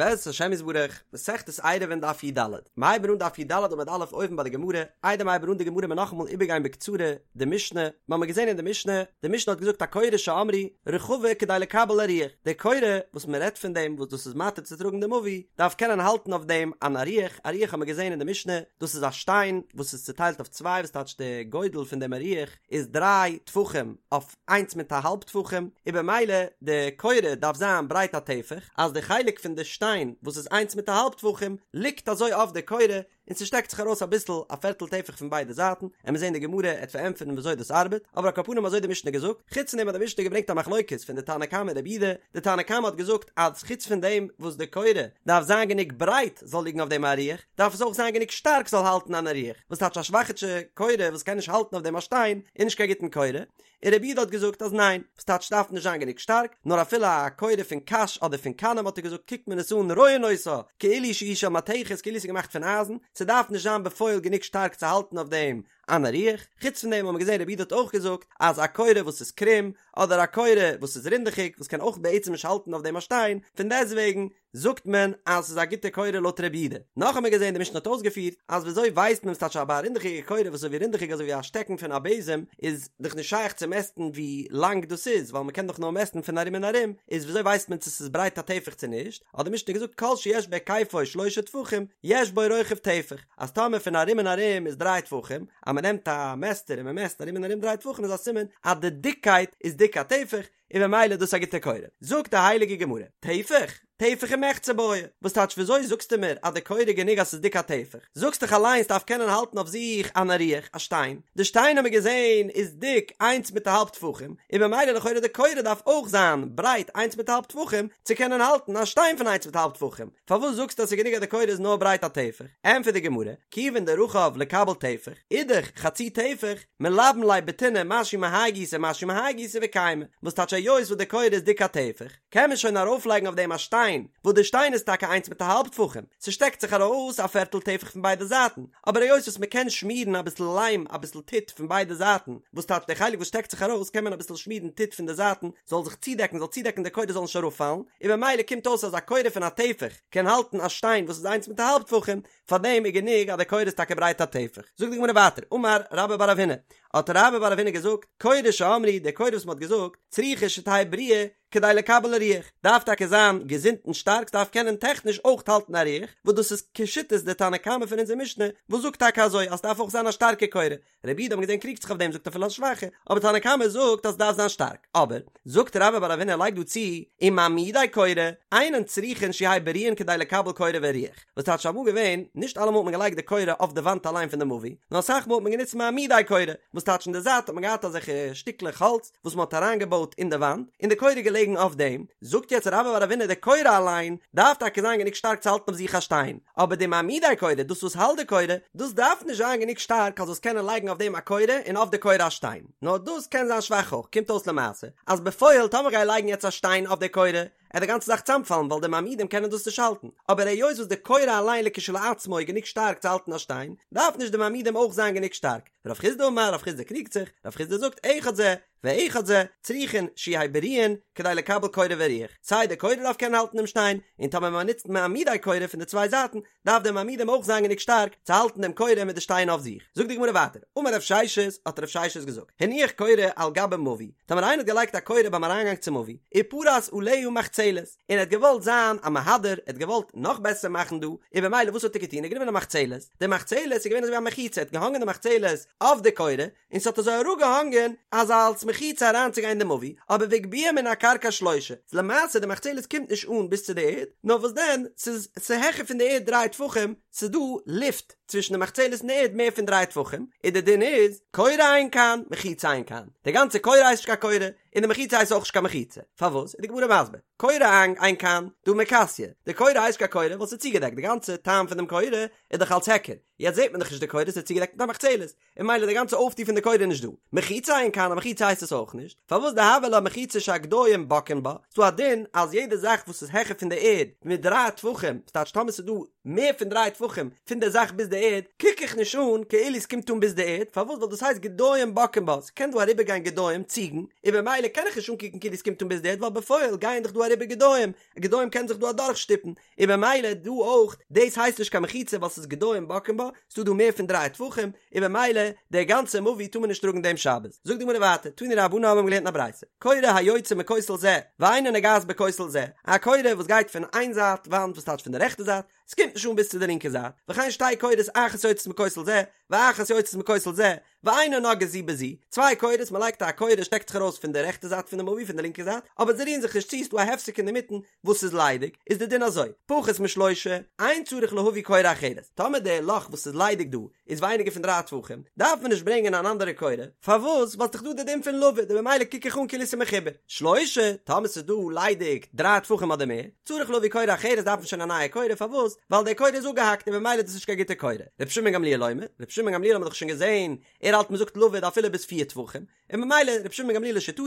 בעזרת השם יתברך, מסכת עירובין דף י"ד, מ'הייבן אן דף י"ד עמוד א' אויבן ביי די גמרא, איידער מ'הייבן אן די גמרא מיר נאכאמאל איבערגיין בקצרה די משנה, מ'האמיר געזען אין די משנה, די משנה האט געזאגט הקורה שאמרו רחבה כדי לקבל אריח, די קורה וואס מ'רעדט פון דעם וואס דאס איז מתיר צו טראגן די מבוי, דארף קענען האלטן אויף דעם אן אריח, אריח האמיר געזען אין די משנה, דאס איז א שטיין וואס איז צוטיילט אויף צוויי וואס טייטש די גודל פון דעם אריח איז דריי טפחים אויף איינס מיט א האלב טפחים, און במילא די קורה דארף זיין ברייט א טפח, אז די חלק פון די שטיין וואס איז איינס מיט א האלב טפחים ליגט אזוי אויף די קורה און ס'שטעקט זיך ארויס אביסל א פערטל טפח פון ביידע זייטן, עמיר זעהן די גמרא עט פארענטפערן וויאזוי דאס ארבעט, אבער על כל פנים אזוי די משנה געזאגט, חוץ פון דעם האט די משנה געברענגט א מחלוקת פון די תנא קמא און רבי יהודה, די תנא קמא האט געזאגט אז חוץ פון דעם וואס די קורה דארף זיין גענוג ברייט זאל ליגן אויף דעם אריח, דארף עס אויך זיין גענוג שטארק זאל האלטן אן אריח, וואס טייטש א שוואכיטשע קורה וואס קען נישט האלטן אויף דעם א שטיין איז נישט קיין גוטן קורה, און רבי יהודה האט געזאגט אז ניין, וואס טייטש דארף נישט זיין גענוג שטארק, נאר אפילו א קורה פון קש אדער פון קנים האט ער געזאגט קוקט מען עס אן רואין אותה כאילו שהיא של מתכת כאילו עס איז געמאכט פון אייזן, ס'דארף נישט זיין בפועל גענוג שטארק צו האלטן אויף דעם אן אריח, חוץ פון דעם האט מען געזען רבי יהודה האט אויך געזאגט אז א קורה וואס איז קרום אדער א קורה וואס איז רינדעכיג וואס קען אויך בעצם נישט האלטן אויף דעם א שטיין, פון דעסטוועגן זאגט מען אז ס'איז א גוטע קורה לויט רבי יהודה. נאך האט מען געזען די משנה האט אויסגעפירט אז וויאזוי ווייסט מען וואס טייטש א רינדעכיגע קורה וואס איז אזוי ווי רינדעכיג אזוי ווי א שטעקן פון א בעזעם איז דאך נישט שייך צו מעסטן ווי לאנג דאס איז ווייל מ'קען דאך נאר מעסטן פון ארום און ארום איז וויאזוי ווייסט מען צו ס'איז ברייט א טפח צו נישט האט די משנה געזאגט כל שיש בהיקפו שלשה טפחים יש בו רוחב טפח אז טאמער פון ארום און ארום איז דריי טפחים אז מ'נעמט א מעסטער און מ'מעסט ארום און ארום דריי טפחים איז א סימן אז די דיקקייט איז דיק א טפח און במילא איז דאס א גוטע קורה. זאגט די הייליגע גמרא, טפח? טפח ומחצה בעי, וואס טייטש וויאזוי זאגסטו מיר אז די קורה איז גענוג אז ס'איז דיק א טפח? זאגסט דאך אליין ס'דארף קענען האלטן אויף זיך אן אריח, א שטיין, די שטיין האמיר געזען איז דיק איינס מיט א האלב טפחים, און במילא לכאורה די קורה דארף אויך זיין ברייט איינס מיט א האלב טפחים צו קענען האלטן א שטיין פון איינס מיט א האלב טפחים, פארוואס זאגסטו אז ס'איז גענוג אז די קורה איז נאר ברייט א טפח? ענטפערט די גמרא, כיוון דרחב לקבל טפח, אידך חצי טפח, מלבין ליה בטינא משהו מהאי גיסא משהו מהאי גיסא וקיימא, וואס טייטש היות וואס די קורה איז דיק א טפח, קען מען שוין ארויפלייגן אויף דעם א שטיין, וואס די שטיין איז טאקע איינס מיט א האלב טפחים, ס'שטעקט זיך ארויס א פערטל טפח פון ביידע זייטן, אבער היות וואס מ'קען שמירן אביסל ליים אביסל טיט פון ביידע זייטן, וואס טייטש די חלק וואס שטעקט זיך ארויס קען מען אביסל שמירן טיט פון די זייטן זאל זיך צודעקן זאל צודעקן די קורה זאל נישט אראפפאלן, און במילא קומט אויס אז א קורה פון א טפח קען האלטן א שטיין וואס איז איינס מיט א האלב טפחים, פאר דעם איז גענוג אז די קורה איז טאקע ברייט א טפח. זאגט די גמרא ווייטער, אמר רבה בר רב הונא, האט רבה בר רב הונא געזאגט, קורה שאמרו, די קורה וואס מען האט געזאגט, צריכה שתהא בריאה כדי לקבל אריח, דארף טאקע זיין געזונט און שטארק, ס'דארף קענען טעכניש אויך האלטן אריח, וואס דאס איז כשיטת די תנא קמא פון אונזער משנה, וואס זאגט טאקע אזוי אז ס'דארף אויך זיין א שטארקע קורה, רבי יהודה האט מען געזען קריגט זיך אויף דעם זאגט אפילו א שוואכע, אבער תנא קמא זאגט אז ס'דארף זיין שטארק, אבער, זאגט רבה בר רב הונא לייגט דא צו, ומעמידי קורה, אינן צריכין שיהיו בריאין כדי לקבל קורה ואריח, וואס טייטש אמאל געווען, נישט אלעמאל האט מען געלייגט די קורה אויף די וואנט אליין פון די מבוי, נאר אסאך מאל האט מען גענוצט מעמידי קורה, וואס טייטש אין די זייט האט מען געהאט אזעלכע שטיקלעך האלץ וואס מען האט אריינגעבויט אין די וואנט, און די קורה איז געלעגן אויף דעם, זאגט יעצט רבה בר רב הונא די קורה אליין דארף טאקע זיין גענוג שטארק צו האלטן אויף זיך א שטיין, אבער די מעמידי קורה, דאס וואס האלט די קורה, דאס דארף נישט זיין גענוג שטארק אז זאלסט קענען לייגן אויף דעם א קורה און אויף די קורה א שטיין, נאר דאס קען זיין שוואך אויך, קומט אויס למעשה אז בפועל טאמער גיי לייגן יעצט א שטיין אויף די קורה, עט די גאנצע זאך צאמפאלן ווייל די מעמידים קענען דאס נישט האלטן, אבער היות וואס די קורה אליין לכשלעצמו איז גענוג שטארק צו האלטן א שטיין, דארף נישט די מעמידים אויך זיין גענוג שטארק. רב חסדא אמר, רב חסדא קריגט זיך, רב חסדא זאגט אחד זה ואחד זה, צריכין שיהיו בריאין כדי לקבל קורה ואריח, סיי די קורה דארף קענען האלטן דעם שטיין, און טאמער מען נוצט מעמידי קורה פון די צוויי זייטן, דארף די מעמידים אויך זיין גענוג שטארק צו האלטן דעם קורה מיט די שטיין אויף זיך. זאגט די גמרא ווייטער, אמר רב ששת, האט רב ששת געזאגט, הניח קורה על גבי מבוי, טאמער איינער האט געלייגט א קורה ביים אריינגאנג צום מבוי, ופרס עליה מחצלת, און ער האט געוואלט זיין א מהדר, ער האט געוואלט נאך בעסער מאכן דא, און במילא וואס האט ער געטון, ער האט גענומען א מחצלת, די מחצלת איז געווען אזוי ווי א מחיצה, ער האט געהאנגען די מחצלת אויף די קורה, און ס'האט אזוי אראפגעהאנגען אז אלס מחיצה אריינצוגיין אין די מבוי, אבער והגביה מן הקרקע שלושה, איז למעשה די מחצלת קומט נישט אן ביז צו די ערד, נאר וואס דען, ס'איז ס'העכער פון די ערד דריי טפחים, ס'איז דא לופט צווישן די מחצלת און די ערד מער פון דריי טפחים, און די דין איז, קורה אין כאן, מחיצה אין כאן, די גאנצע קורה הייסט נישט קיין קורה, און די מחיצה הייסט אויך נישט קיין מחיצה, פארוואס? איז די גמרא מסביר, קורה אין אין כאן, דהא מיכסיא, די קורה הייסט נישט קיין קורה ווייל ס'איז צוגעדעקט, די גאנצע טעם פון דעם קורה איז דאך אלס היכר, יעצט זעט מען דאך נישט די קורה, ס'איז צוגעדעקט מיט א מחצלת, און ממילא די גאנצע אויפטו פון די קורה איז נישט דא. מחיצה אין כאן, א מחיצה הייסט עס אויך נישט, פארוואס דהוה לה מחיצה שהגדיים בוקעין בה, ס'דא א דין אז יעדע זאך וואס איז העכער פון די ערד מיט דריי טפחים, ס'טייטש טאמער ס'איז דא מער פון דריי טפחים פון די זאך ביז די ערד, קוק איך נישט אן כאילו ס'קומט אן ביז די ערד, פארוואס ווייל דאס הייסט גדיים בוקעין בה, ס'קען דא אריבערגיין גדיים, ציגן, און במילא. במילא קען איך נישט אנקוקן כאילו עס קומט אן ביז די ערד ווייל בפועל גייען דאך דא אריבער גדיים, גדיים קענען זיך דא אדורך שטופן, און במילא דא אויך, דאס הייסט נישט קיין מחיצה ווייל ס'איז גדיים בוקעין בה, ס'דא דא מער פון דריי טפחים, און במילא די גאנצע מבוי טאר מען נישט טראגן דעם שבת. זאגט די גמרא ווייטער, תנו רבנן האבן געלערנט אין א ברייתא, קורה היוצאה מכותל זה, ואינה נוגעת בכותל זה, א קורה וואס גייט פון איין זייט וואנט וואס טייטש פון די רעכטע זייט, ס'קומט נישט אן ביז צו די לינקע זייט, וכן שתי קורות אחת יוצאת מכותל זה, ואחת יוצאת מכותל זה, ואינן נוגעות זו בזו, צוויי קורות, מען לייגט א קורה שטעקט זיך ארויס פון די רעכטע זייט פון די מבוי פון די לינקע זייט, אבער זיי רירן זיך נישט צו, ס'דא א הפסק אינדערמיטן וואס איז ליידיג, איז די דין אזוי, פחות משלושה, אין צריך להביא קורה אחרת, טאמער די לאך וואס איז ליידיג דא איז ווייניגער פון דריי טפחים, דארף מען נישט ברענגען אן אנדערע קורה, פארוואס? ווייל ס'דאך דא די דין פון לבוד, און במילא קוק איך אן כאילו ס'איז מחובר. שלושה, טאמער ס'איז דא ליידיג דריי טפחים אדער מער, צריך להביא קורה אחרת דארף מען שוין א נייע קורה, פארוואס? ווייל די קורה איז אפגעהאקט און במילא איז דאס נישט קיין גוטע קורה. רבי שמעון גמליאל אומר, רבי שמעון גמליאל האט מען דאך שוין געזען, ער האלט מ'זאגט לבוד אפילו ביז פיר טפחים, און ממילא רבי שמעון בן גמליאל לשיטתו,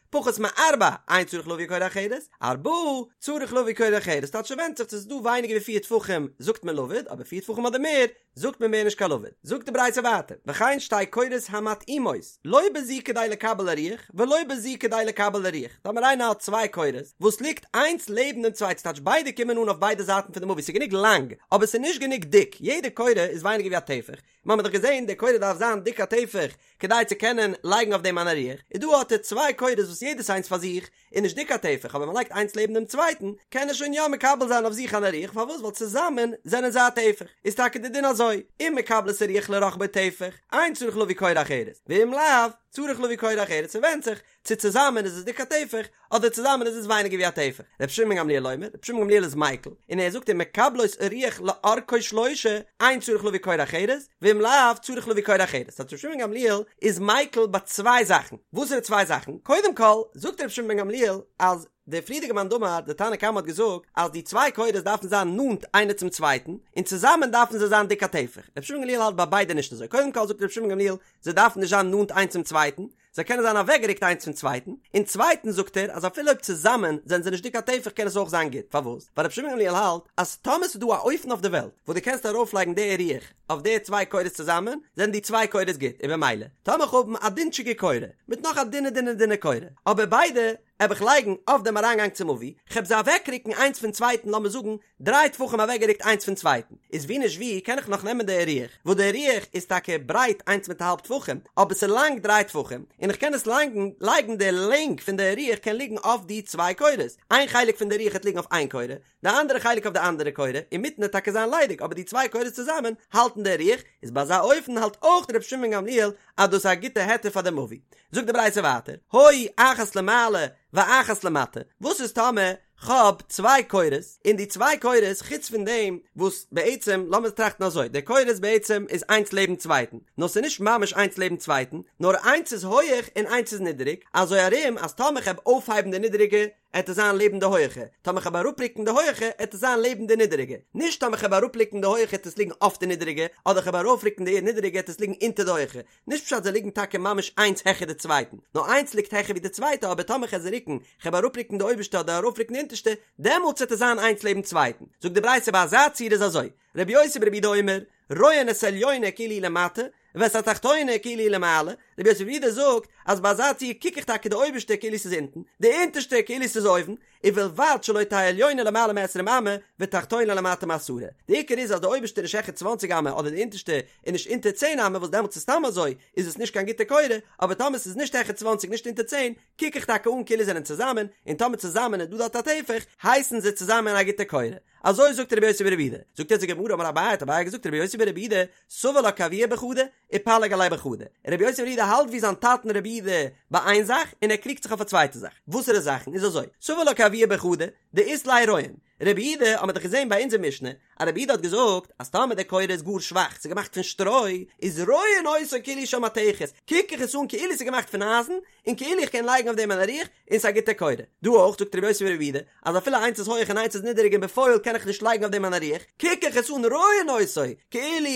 פחות מארבע, אין צריך להביא קורה אחרת, ארבעה, צריך להביא קורה אחרת, טייטש ס'ווענדט זיך צו ס'איז דא ווייניגער ווי פיר טפחים זאגט מען לבוד, אבער פיר טפחים אדער מער זאגט מען מער נישט קיין לבוד. זאגט די ברייתא ווייטער, וכן שתי קורות המתאימות, לא בזו כדי לקבל הרוח, ולא בזו כדי לקבל הרוח, טאמער איינער האט צוויי קורות וואס ליגט איינס לעבן דעם צווייטן, ס'טייטש ביידע קומען אן אויף ביידע זייטן פון די מבוי, ס'איז גענוג לאנג, אבער ס'איז נישט גענוג דיק, יעדע קורה איז ווייניגער ווי א טפח, מיר האבן דאך געזען די קורה דארף זיין דיק א טפח כדי צו קענען לייגן אויף דעם אן אריח, איז דא האט ער צוויי קורות וואס יעדעס איינס פאר זיך איז נישט דיק א טפח אבער מען לייגט איינס לעבן דעם צווייטן קען ער שוין יא מקבל זיין אויף זיך אן אריח פארוואס ווייל צוזאמען זענען זיי א טפח איז טאקע די דין אזוי אם מקבלות הרוח לרחבו טפח אין צריך להביא קורה אחרת ואם לאו צריך להביא קורה אחרת ס'ווענדט זיך צו צוזאמען איז עס דיק א טפח, אדער צוזאמען איז עס ווייניגער ווי א טפח. רבי שמעון בן גמליאל אומר, רבי שמעון בן גמליאל איז מיקל, און ער זאגט אם מקבלות הרוח לאורכו שלושה, אין צריך להביא קורה אחרת, ואם לאו, צריך להביא קורה אחרת. ס'הייסט רבי שמעון בן גמליאל איז מיקל ביי צוויי זאכן. וואסערע צוויי זאכן? קודם כל, זאגט רבי שמעון בן גמליאל, אז דער פריערדיגער מאן דאמר, דער תנא קמא האט געזאגט, אז די צוויי קורות דארפן זיין נאנט איינער צום צווייטן, און צוזאמען דארפן זיי זיין דיק א טפח. רבי שמעון בן גמליאל האלט ביי ביידע נישט אזוי. קודם כל זאגט רבי שמעון בן גמליאל, זיי דארפן נישט זיין נאנט איינס צום צווייטן, זיי קענען זיין אוועקגעריקט איינס פון צווייטן, און צווייטנס זאגט ער אז אפילו אויב צוזאמען זענען זיי נישט דיק א טפח קען עס אויך זיין גוט, פארוואס? ווייל רבי שמעון גמליאל האלט אז טאמער ס'איז דא א אופן אויף די וועלט וואס דו קענסט ארויפלייגן די אריח אויף די צוויי קורות צוזאמען זענען די צוויי קורות גוט, און במילא טאמער איך האב א דינטשיגע קורה מיט נאך א דינע דינע דינע קורה אבער ביידע העב איך לייגן אויף דעם אריינגאנג צום מבוי, כ'העב זיי אוועקרוקן איינס פון צווייטן לאמיר זאגן דריי טפחים אוועקגערוקט איינס פון צווייטן, איז ווי נישט ווי קען איך נאך נעמען די אריח, וואס די אריח איז טאקע ברייט איינס מיט א האלב טפחים, אבער ס'איז לאנג דריי טפחים, און איך קען עס לייגן, לייגן די לענג פון די אריח קען ליגן אויף די צוויי קורות, איין חלק פון די אריח העט ליגן אויף איין קורה, די אנדערע חלק אויף די אנדערע קורה, אינמיטן העט טאקע זיין ליידיג אבער די צוויי קורות צוזאמען האלטן די אריח, איז ביי אזא אופן האלט אויך ר' שמעון גמליאל אז דאס איז א גוטע היתר פאר די מבוי. זאגט די ברייתא ווייטער, היו אחת למעלה ואחת למטה, וואס איז טאמער כ'האב צוויי קורות, און די צוויי קורות חוץ פון דעם וואס בעצם, לאמיר טראכטן אזוי, די קורות בעצם איז איינס לעבן צווייטן, נאר ס'איז נישט ממש איינס לעבן צווייטן, נאר איינס איז הויעך און איינס איז נידעריג, אזוי ארום אז טאמער כ'העב אויפהייבן די נידעריגע, עט עס זיין לעבן די הויעכע, טאמער כ'העב אראפרוקן די הויעכע, עט עס זיין לעבן די נידעריגע, נישט טאמער כ'העב אראפרוקן די הויעכע עט עס ליגן אויף די נידעריגע, אדער כ'העב ארויפרוקן די נידעריגע עט עס ליגן אונטער די הויעכע, נישט פשט זיי ליגן טאקע ממש איינס העכער די צווייטן, נאר איינס ליגט העכער ווי די צווייטע אבער טאמער כ'על זיי רוקן, כ'העב אראפרוקן די אויבערשטע אדער ארויפרוקן די אונטערשטע, דעמאלטס וועט עס זיין איינס לעבן צווייטן. זאגט די ברייתא ביי אזא ציור איז אזוי, רבי יוסי ברבי יהודה אומר, רואין את העליונה כאילו היא למטה, ואת התחתונה כאילו היא למעלה, רבי יוסי ברבי יהודה זאגט אז ביי אזא ציור קוק איך טאקע די אויבערשטע כאילו ס'איז אונטן, די אונטערשטע כאילו ס'איז אויבן, ובלבד שלא תהא עליונה למעלה מעשרים אמה ותחתונה למטה מעשרה, די עיקר איז אז די אויבערשטע איז נישט העכער צוואנציג אמה אדער די אונטערשטע איז נישט אונטער צען אמה וואס דעמאלטס איז סתם אזוי איז עס נישט קיין גוטע קורה, אבער טאמער ס'איז נישט העכער צוואנציג נישט אונטער צען קוק איך טאקע אן כאילו זענען צוזאמען, און טאמער צוזאמען איז דא דארט א טפח הייסן זיי צוזאמען א גוטע קורה. אזוי זאגט רבי יוסי ברבי יהודה, זאגט יעצט די גמרא אמר אביי האט אביי געזאגט רבי יוסי ברבי יהודה סבר לה כאבוה בחדא ופליג עליה בחדא, רבי יוסי ברבי יהודה האלט ווי זיין טאטן רבי יהודה ביי איין זאך און ער קריגט זיך אויף א צווייטע זאך, וואסערע זאכן איז אזוי סבר לה כאבוה בחדא דאית ליה רואין, רבי יהודה האט מען דאך געזען ביי אונזער משנה אז רבי יהודה האט געזאגט אז טאמער די קורה איז גאר שוואך ס'איז געמאכט פון שטרוי איז רואין אותו כאילו של מתכת קוק איך עס אן כאילו ס'איז געמאכט פון אייזן און כאילו איך קען לייגן אויף דעם אן אריח און ס'איז א גוטע קורה. דא אויך זאגט רבי יוסי ברבי יהודה אז אפילו איינס איז הויעך און איינס איז נידעריג און בפועל קען איך נישט לייגן אויף דעם אן אריח, קוק איך עס אן רואין אותו כאילו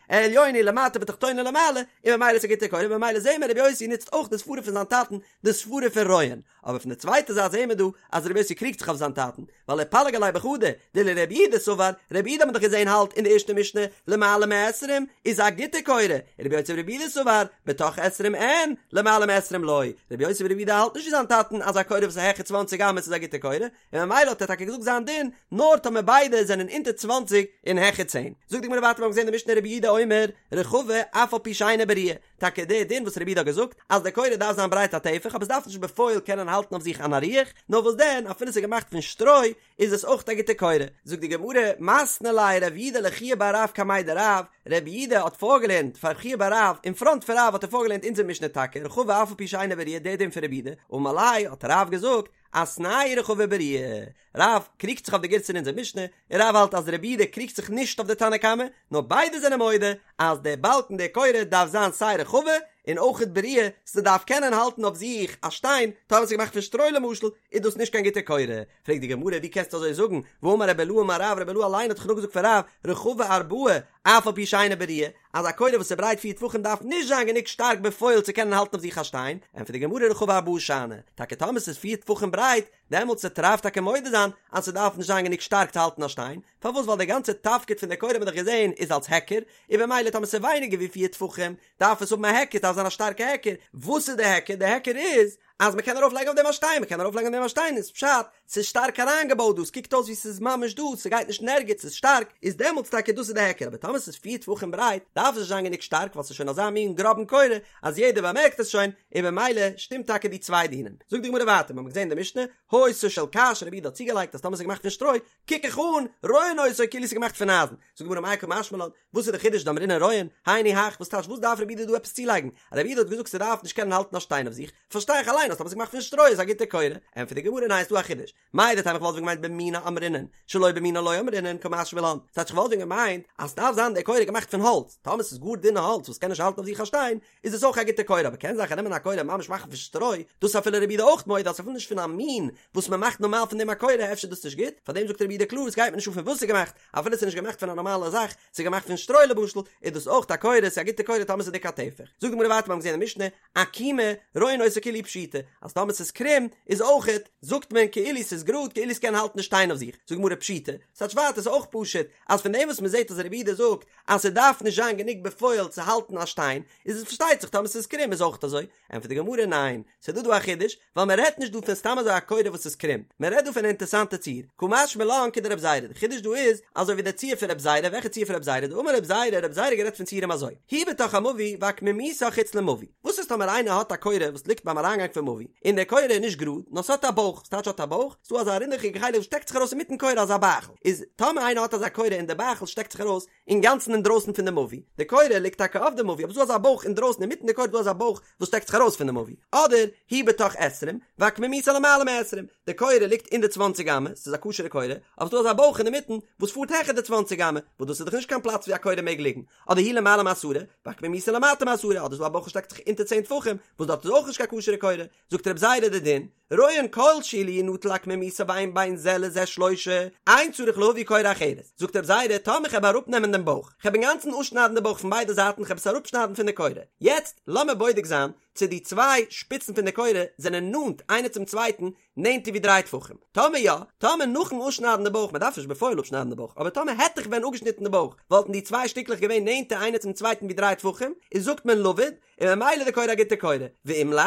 עליונה למטה ותחתונה למעלה, און ממילא איז א גוטע קורה, ממילא זעהן מיר רבי יוסי נוצט אויך די סברה פון זיין טאטן, די סברה פון רואין. אבער פון די צווייטע זייט זעהן מיר דא אז רבי יוסי קריגט זיך אויף זיין טאטן, ווייל ופליג עליה. וחדא, דלרבי יהודה סבר, רבי יהודה האט מען דאך געזען האלט אין די ערשטע משנה, למעלה מעשרים איז א גוטע קורה, רבי יוסי ברבי יהודה סבר, בתוך עשרים אין, למעלה מעשרים לא, רבי יוסי ברבי יהודה האלט נישט ווי זיין טאטן אז א קורה וואס איז העכער צוואנציג אמות איז א גוטע קורה, און ממילא האט ער טאקע געזאגט זיין דין נאר טאמער ביידע זענען אונטער צוואנציג און העכער צען. זאגט די גמרא ווייטער מיר האבן געזען די משנה רבי יהודה אומר רחבה אף על פי שאינה בריאה, טאקע די דין וואס רבי יהודה האט געזאגט אז די קורה דארף זיין ברייט א טפח אבער עס דארף נישט בפועל קענען האלטן אויף זיך אן אריח, נאר וואס דען אפילו עס איז געמאכט פון שטרוי איז עס אויך א גוטע קורה. זאגט די גמרא, מתני ליה רב יהודה לחייא בר רב קמיה דרב, רב יהודה האט פארגעלערנט פאר חייא בר רב, אין פראנט פון רב האט ער פארגעלערנט אונזער משנה טאקע, רחבה אף על פי שאינה בריאה די דין פון רבי יהודה, אמר ליה האט רב געזאגט, אתנהו רחבה ובריאה. רב קריגט זיך אויף די גירסא אין אונזער משנה, און רב האלט אז רבי יהודה קריגט זיך נישט אויף די תנא קמא, נאר ביידע זענען מודה אז דער באלקן דער קורה דארף זיין סיי רחבה און אויכעט בריאה, ס'דארף קענען האלטן אויף זיך א שטיין, טאמער ס'איז געמאכט פון שטרוי למשל, איז דאס נישט קיין גוטע קורה. פרעגט די גמרא ווי קענסטו אזוי זאגן, והאמר רבי אילעא אמר רב, רבי אילעא אליין האט דאך נאכגעזאגט פון רב, רחבה ארבעה, אף על פי שאינה בריאה, אז א קורה וואס איז ברייט פיר טפחים דארף נישט זיין גענוג שטארק בפועל צו קענען האלטן אויף זיך א שטיין, ענטפערט די גמרא רחבה ארבעה שאני, טאקע טאמער ס'איז פיר טפחים ברייט, דעמאלטס וועט רב טאקע מודה זיין אז ס'דארף נישט זיין גענוג שטארק צו האלטן א שטיין, פארוואס ווייל די גאנצע תפקיד פון די קורה האט מען דאך געזען איז אלס היכר, און במילא טאמער ס'איז ווייניגער ווי פיר טפחים דארף עס האבן א היכר, ס'דארף זיין א שטארקע היכר, וואס איז די היכר? די היכר איז אז מ'קען ארויף לייגן אויף דעם א שטיין, מ'קען ארויף לייגן אויף דעם א שטיין איז פשט ס'איז שטארק אריינגעבויט דא, ס'קוקט אויס ווי ס'איז ממש דא, ס'גייט נישט אין ערגעץ, ס'איז שטארק, איז דעמאלטס טאקע דאס איז די היכר, אבער טאמער ס'איז פיר טפחים ברייט דארף עס נישט זיין גענוג שטארק ווייל ס'איז שוין אזא מין גראבן קורה אז יעדער באמערקט עס שוין, און במילא שטימט טאקע די צוויי דינים. זאגט די גמרא ווייטער, מ'האט געזען אין די משנה, היתה של קש, רבי יהודה האט צוגעלייגט אז טאמער ס'איז געמאכט פון שטרוי, קוק איך אן, רואין אותו כאילו ס'איז געמאכט פון אייזן. זאגט די גמרא מאי קא משמע לן, וואס איז די חידוש דאמרינן רואין, היינו הך, וואס טייטש וואס דארף רבי יהודה דא עפעס צולייגן? רבי יהודה האט געזאגט ס'דארף נישט קענען האלטן א שטיין אויף זיך, פארשטיי איך אליין אז טאמער ס'איז געמאכט פון שטרוי איז א גוטע קורה. ענטפערט די גמרא ניין ס'דא א חידוש, מהו דתימא איך וואלט ווען געמיינט במינה אמרינן, שלא במינה לא אמרינן קא משמע לן, ס'טייטש איך וואלט ווען געמיינט אז ס'דארף זיין די קורה געמאכט פון האלץ, טאמער ס'איז גאר דינע האלץ וואס קען נישט האלטן אויף זיך א שטיין, איז עס אויך א גוטע קורה, אבער קען זיין כ'נעמען א קורה ממש מאכן פון שטרוי, דאס איז אפילו רבי יהודה אויך מודה אז אפילו נישט פון א מין וואס מ'מאכט נארמאל פון דעם א קורה אפשר איז דאס נישט גוט, פארדעם זאגט רבי יהודה קלאר עס גייט מיר נישט אן פון וואס ס'איז געמאכט, אפילו ס'איז נישט געמאכט פון א נארמאלע זאך, ס'איז געמאכט פון שטרוי למשל, איז דאס אויך א קורה, ס'איז א גוטע קורה טאמער ס'איז דיק א טפח. זאגט די גמרא ווייטער מיר האבן געזען אין משנה, עקומה, רואין אותה כאילו היא פשוטה, אז טאמער ס'איז קרום, איז אויכעט, זאגט מען כאילו ס'איז גראד, כאילו ס'קען האלטן די שטיין אויף זיך. זאגט די גמרא פשיטא, ס'טייטש ווייטער ס'איז אויך פשוט, אז פון דעם וואס מ'זעט אז רבי יהודה זאגט אז ס'דארף נישט זיין גענוג בפועל צו האלטן א שטיין, איז עס פארשטייט זיך טאמער ס'איז קרום איז אויכט אזוי. ענטפערט די גמרא ניין, ס'איז דא דא א חידוש, ווייל מען רעדט נישט דא פון סתם אזוי א קורה וואס איז קרום, מען רעדט דא פון א אינטערסאנטע ציור, קא משמע לן כדרב זירא, די חידוש דא איז, אזוי ווי די ציור פון רב זירא, וועלכע ציור פון רב זירא, דאמר רב זירא, רב זירא האט גערעדט פון ציורים אזוי, היא בתוך המבוי ועקמומיתה חוץ למבוי, וואס איז טאמער איינער האט א קורה וואס ליגט ביים אריינגאנג פון מבוי, און די קורה איז נישט גראד, נאר ס'האט א בויך, וואס טייטש האט א בויך? ס'דא אזא רינדעכיגע חלק וואס שטעקט זיך ארויס אינמיטן קורה אזא בייכל, איז טאמער איינער האט אזא קורה און די בייכל שטעקט זיך ארויס, אינגאנצן אינדרויסן פון די מבוי, די קורה ליגט טאקע אויף די מבוי אבער ס'דא אזא בויך אינדרויסן אינמיטן די קורה איז דא אזא בויך וואס שטעקט זיך ארויס פון די מבוי, אדער היא בתוך עשרים ועקמומיתה למעלה מעשרים, די קורה ליגט אין די צוואנציג אמה, ס'איז א כשר'ע קורה, אבער ס'דא אזא בויך אינמיטן וואס פארט העכער די צוואנציג אמה, וואס דאס איז דאך נישט קיין פלאץ ווי א קורה מעג ליגן, אדער היא למעלה מעשרה ועקמומיתה למטה מעשרה, אדער ס'דא א בויך וואס שטעקט זיך אונטער צען טפחים, וואס דארט איז אויך נישט קיין כשר'ע קורה, זאגט רב זירא די דין, רואין כל שהוא לו ינטל עקמומיתה ואין בין זה לזה שלושה, אין צריך להביא קורה אחרת. זאגט רב זירא, טאמער כ'העב אראפנעמען דעם בויך, כ'העב אינגאנצן אפשניידן די בויך פון ביידע זייטן, כ'העב עס אראפשניידן פון די קורה. יעצט, לאמיר בודק זיין צו די צוויי שפיצן פון די קורה זענען נאנט איינער צום צווייטן נענטער ווי דריי טפחים. טאמער יא, טאמער נאכן אפשניידן די בויך, מ'דארף נישט בפועל אפשניידן די בויך, אבער טאמער העט איך ווען אפגעשניטן די בויך, וואלטן די צוויי שטיקלעך געווען נענטער איינער צום צווייטן ווי דריי טפחים, איז זאגט מען לבוד, און ממילא די קורה א גוטע קורה, ואם לאו,